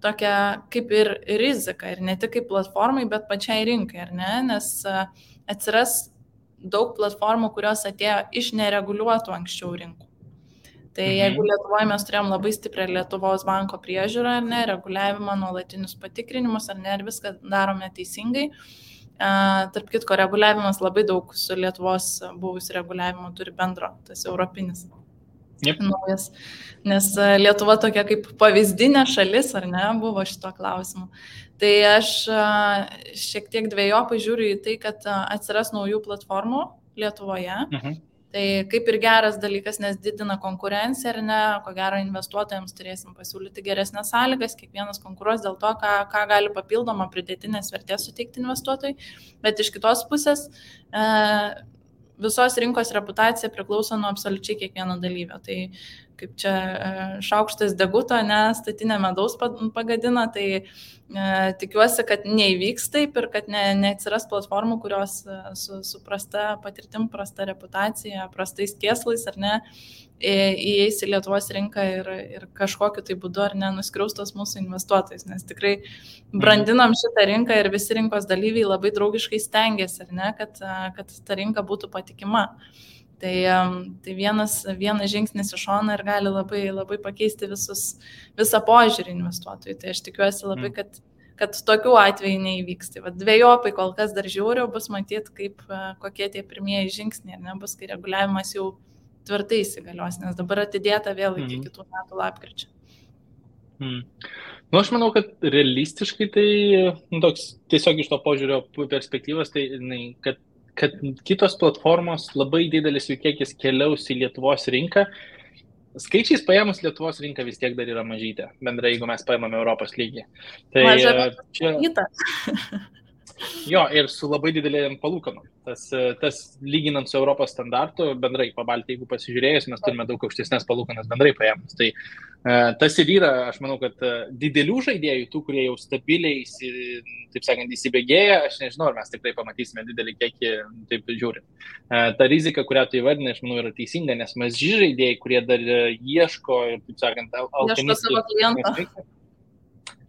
tokia kaip ir rizika, ir ne tik kaip platformai, bet pačiai rinkai, ar ne, nes atsiras daug platformų, kurios atėjo iš nereguliuotų anksčiau rinkų. Tai jeigu Lietuvoje mes turėjom labai stiprią Lietuvos banko priežiūrą, ar ne, reguliavimą, nuolatinius patikrinimus, ar ne, ir viską darome teisingai. Tarp kitko, reguliavimas labai daug su Lietuvos buvusiu reguliavimu turi bendro, tas europinis. Naujas. Nes Lietuva tokia kaip pavyzdinė šalis, ar ne, buvo šito klausimu. Tai aš šiek tiek dvejopai žiūriu į tai, kad atsiras naujų platformų Lietuvoje. Tai kaip ir geras dalykas, nes didina konkurenciją, ar ne, ko gero investuotojams turėsim pasiūlyti geresnės sąlygas, kiekvienas konkuruos dėl to, ką gali papildomą pridėtinės vertės suteikti investuotojai, bet iš kitos pusės visos rinkos reputacija priklauso nuo absoliučiai kiekvieno dalyvio. Tai kaip čia šaukštas deguto, statinė medaus pagadina, tai tikiuosi, kad neįvyks taip ir kad neatsiras platformų, kurios su prasta patirtim, prasta reputacija, prastais kėslais ar ne, įeis į Lietuvos rinką ir kažkokiu tai būdu ar ne nuskriaustos mūsų investuotojais, nes tikrai brandinam šitą rinką ir visi rinkos dalyviai labai draugiškai stengiasi, ar ne, kad ta rinka būtų patikima. Tai vienas žingsnis iš šono ir gali labai, labai pakeisti visą požiūrį investuotojų. Tai aš tikiuosi labai, kad tokių atvejų neįvyks. Tai dvejopai kol kas dar žiūriu, bus matyti, kokie tie pirmieji žingsniai, ar ne, bus, kai reguliavimas jau tvirtai įsigalios, nes dabar atidėta vėl iki kitų metų lapkričio. Aš manau, kad realistiškai tai toks tiesiog iš to požiūrio perspektyvos, tai kad kad kitos platformos labai didelis jų kiekis keliaus į Lietuvos rinką. Skaičiais paėmus Lietuvos rinka vis tiek dar yra mažytė, bendrai, jeigu mes paėmame Europos lygį. Tai čia... Jo, ir su labai didelėm palūkanom. Tas lyginant su Europos standartu, bendrai pabaltį, jeigu pasižiūrėjus, mes turime daug aukštesnės palūkanas bendrai paėmus. Tai tas ir yra, aš manau, kad didelių žaidėjų, tų, kurie jau stabiliai, taip sakant, įsibėgėja, aš nežinau, ar mes tikrai pamatysime didelį kiekį, taip žiūrint. Ta rizika, kurią tu įvardinai, aš manau, yra teisinga, nes maži žaidėjai, kurie dar ieško, taip sakant, alpinistų.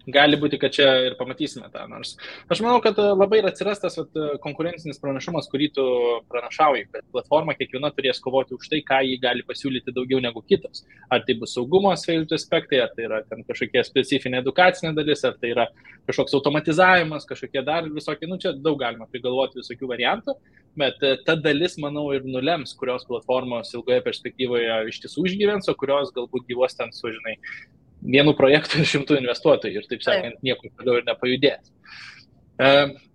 Gali būti, kad čia ir pamatysime tą, nors aš manau, kad labai ir atsiras tas konkurencinis pranašumas, kurį tu pranašauji, kad platforma kiekviena turės kovoti už tai, ką jį gali pasiūlyti daugiau negu kitos. Ar tai bus saugumo aspektai, ar tai yra ten kažkokia specifinė edukacinė dalis, ar tai yra kažkoks automatizavimas, kažkokie dar visokie, čia daug galima prigalvoti visokių variantų, bet ta dalis, manau, ir nulems, kurios platformos ilgoje perspektyvoje iš tiesų išgyvens, o kurios galbūt gyvos ten su, žinai, vienu projektu ir 100 investuotojų ir taip sakant, niekur toliau ir nepajudės.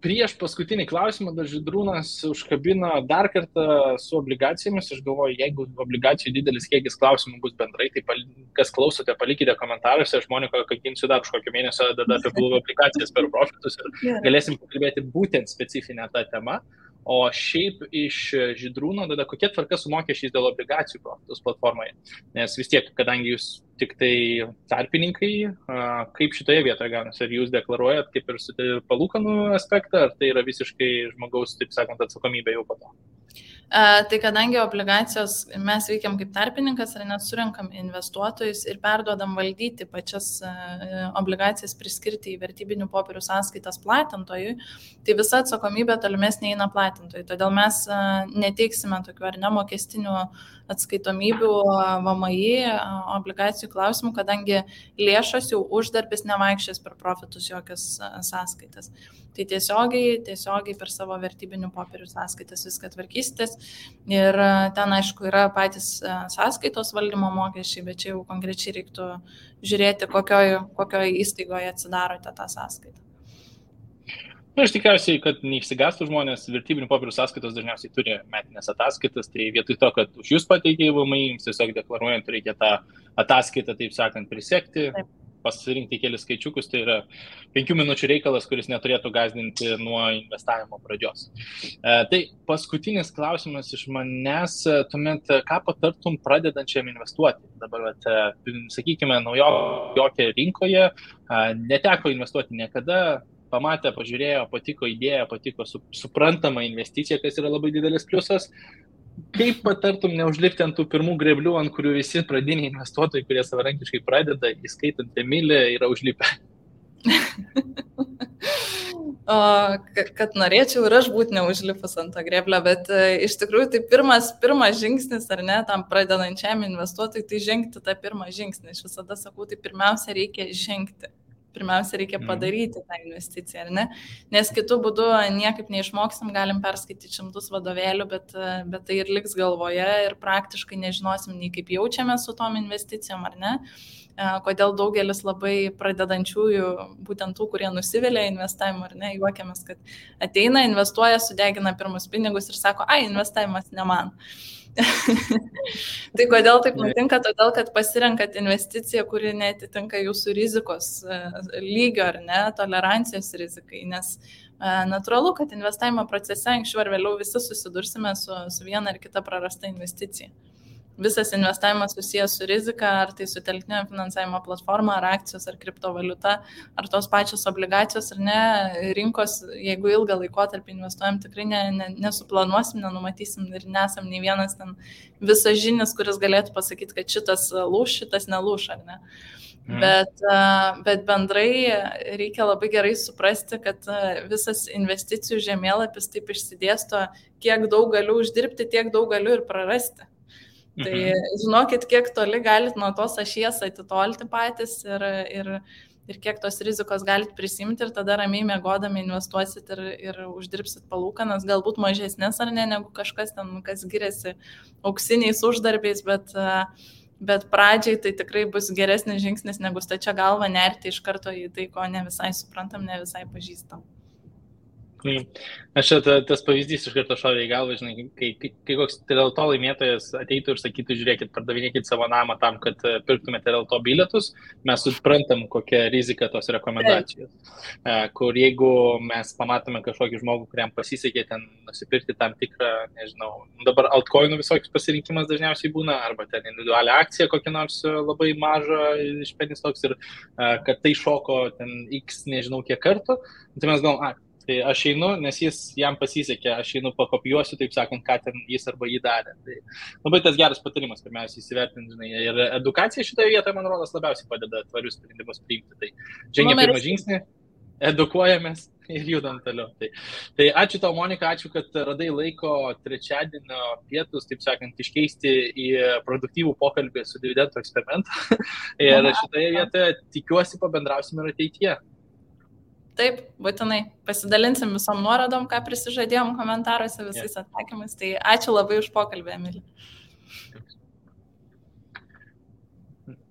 Prieš paskutinį klausimą dar Žydrūnas užkabino dar kartą su obligacijomis. Aš galvoju, jeigu obligacijų didelis kiekis klausimų bus bendrai, tai kas klausote, palikite komentaruose. Aš Monika Kakinsiu dar už kokio mėnesio tada apie blue obligacijas per profitus ir galėsim pakalbėti būtent specifinę tą temą. O šiaip iš Žydrūno, tada kokia tvarka su mokesčiais dėl obligacijų profitus platformoje? Nes vis tiek, kadangi jūs tik tai tarpininkai, kaip šitoje vietoje gaunasi? Ar jūs deklaruojat kaip ir su palūkanų aspektą, ar tai yra visiškai žmogaus, taip sakant, atsakomybė jau po to? Tai kadangi obligacijos mes veikiam kaip tarpininkas, ar net surinkam investuotojus ir perduodam valdyti pačias obligacijas priskirti į vertybinių popierių sąskaitas platintojui, tai visa atsakomybė tolimesnė eina platintojui. Todėl mes neteiksime tokių ar nemokestinių atskaitomybių VMI obligacijų klausimų, kadangi lėšos jau uždarbis nevaikščias per profitus jokias sąskaitas. Tai tiesiogiai per savo vertybinių popierių sąskaitas viską tvarkysitės ir ten, aišku, yra patys sąskaitos valdymo mokesčiai, bet čia jau konkrečiai reiktų žiūrėti, kokioje įstaigoje atsidarote tą sąskaitą. Aš tikriausiai, kad neišsigastų žmonės, vertybinių popierių sąskaitos dažniausiai turi metinės ataskaitas, tai vietoj to, kad už jūs pateikė VMI, jums tiesiog deklaruojant reikia tą ataskaitą, taip sakant, prisekti. Taip. Pasirinkti kelius skaičiukus, tai yra 5 minučių reikalas, kuris neturėtų gąsdinti nuo investavimo pradžios. Tai paskutinis klausimas iš manęs, tuomet ką patartum pradedančiam investuoti? Dabar, sakykime, naujokė rinkoje, neteko investuoti niekada, pamatė, pažiūrėjo, patiko idėja, patiko suprantama investicija, kas yra labai didelis pliusas. Kaip patartum neužlipti ant tų pirmų greblių, ant kurių visi pradiniai investuotojai, kurie savarankiškai pradeda, įskaitant Emilį, yra užlipę? Kad norėčiau ir aš būti neužlipus ant tą greblę, bet iš tikrųjų tai pirmas žingsnis, ar ne, tam pradedančiam investuotojui, tai žengti tą pirmą žingsnį. Aš visada sakau, tai pirmiausia reikia žengti. Pirmiausia, reikia padaryti tą investiciją, ar ne? Nes kitų būdų niekaip neišmoksim, galim perskaityti 100 vadovėlių, bet tai ir liks galvoje ir praktiškai nežinosim nei kaip jaučiame su tom investicijom, ar ne? Kodėl daugelis labai pradedančiųjų, būtent tų, kurie nusivilia investavimu, ar ne, juokiamės, kad ateina, investuoja, sudegina pirmus pinigus ir sako, investavimas ne man. Tai kodėl taip nutinka? Todėl, kad pasirenkat investiciją, kuri netitinka jūsų rizikos lygio ar ne, tolerancijos rizikai, nes natūralu, kad investavimo procese anksčiau ar vėliau visi susidursime su viena ar kita prarasta investicija. Visas investavimas susijęs su rizika, ar tai su telktinio finansavimo platforma, ar akcijos, ar kriptovaliuta, ar tos pačios obligacijos, ar ne, rinkos, jeigu ilgą laikotarpį investuojam, tikrai nesuplanuosim, nenumatysim ir nesam nei vienas ten visažinis, kuris galėtų pasakyti, kad šitas lūš, šitas nelūš, ar ne. Bet bendrai reikia labai gerai suprasti, kad visas investicijų žemėlapis taip išsidėsto, kiek daug galiu uždirbti, tiek daug galiu ir prarasti. Tai žinokit, kiek toli galit nuo tos ašies atitolti patys ir kiek tos rizikos galit prisimti ir tada ramiai miegodami investuosit ir uždirbsit palūkanas, galbūt mažesnės ar ne, negu kažkas ten, kas giriasi auksiniais uždarbiais, bet pradžiai tai tikrai bus geresnis žingsnis, negu stačia galva nerti iš karto į tai, ko ne visai suprantam, ne visai pažįstam. Aš tas pavyzdys iš karto šovė į galvą, žinai, kai koks Terelto laimėtojas ateitų ir sakytų, žiūrėkit, pardavinėkit savo namą tam, kad pirktumėte Terelto bilietus, mes suprantam, kokia rizika tos rekomendacijos. Kur jeigu mes pamatome kažkokį žmogų, kuriam pasisekė ten nusipirkti tam tikrą, nežinau, dabar altcoinų visokius pasirinkimas dažniausiai būna, arba ten individualią akciją kokią nors labai mažą iš penny stocks ir kad tai šoko ten x nežinau kiek kartų, tai mes galvom, tai aš einu, nes jam pasisekė, aš einu pakopijuosiu, taip sakant, ką ten jis arba jį darė. Tai labai tas geras patarimas, pirmiausia, įsivertinti, žinai, ir edukacija šitoje vietoje, man rodos, labiausiai padeda tvarius sprendimus priimti. Tai žengia pirmą žingsnį, edukuojamės ir judam toliau. Tai ačiū tau, Monika, ačiū, kad radai laiko trečiadienio pietus, taip sakant, iškeisti į produktyvų pokalbį su dividendų eksperimentu. Ir šitoje vietoje tikiuosi pabendrausim ir ateityje. Taip, būtinai. Pasidalinsim visom nuorodom, ką prisižadėjom komentaruose visais atsakymais. Tai ačiū labai už pokalbį, Emilija.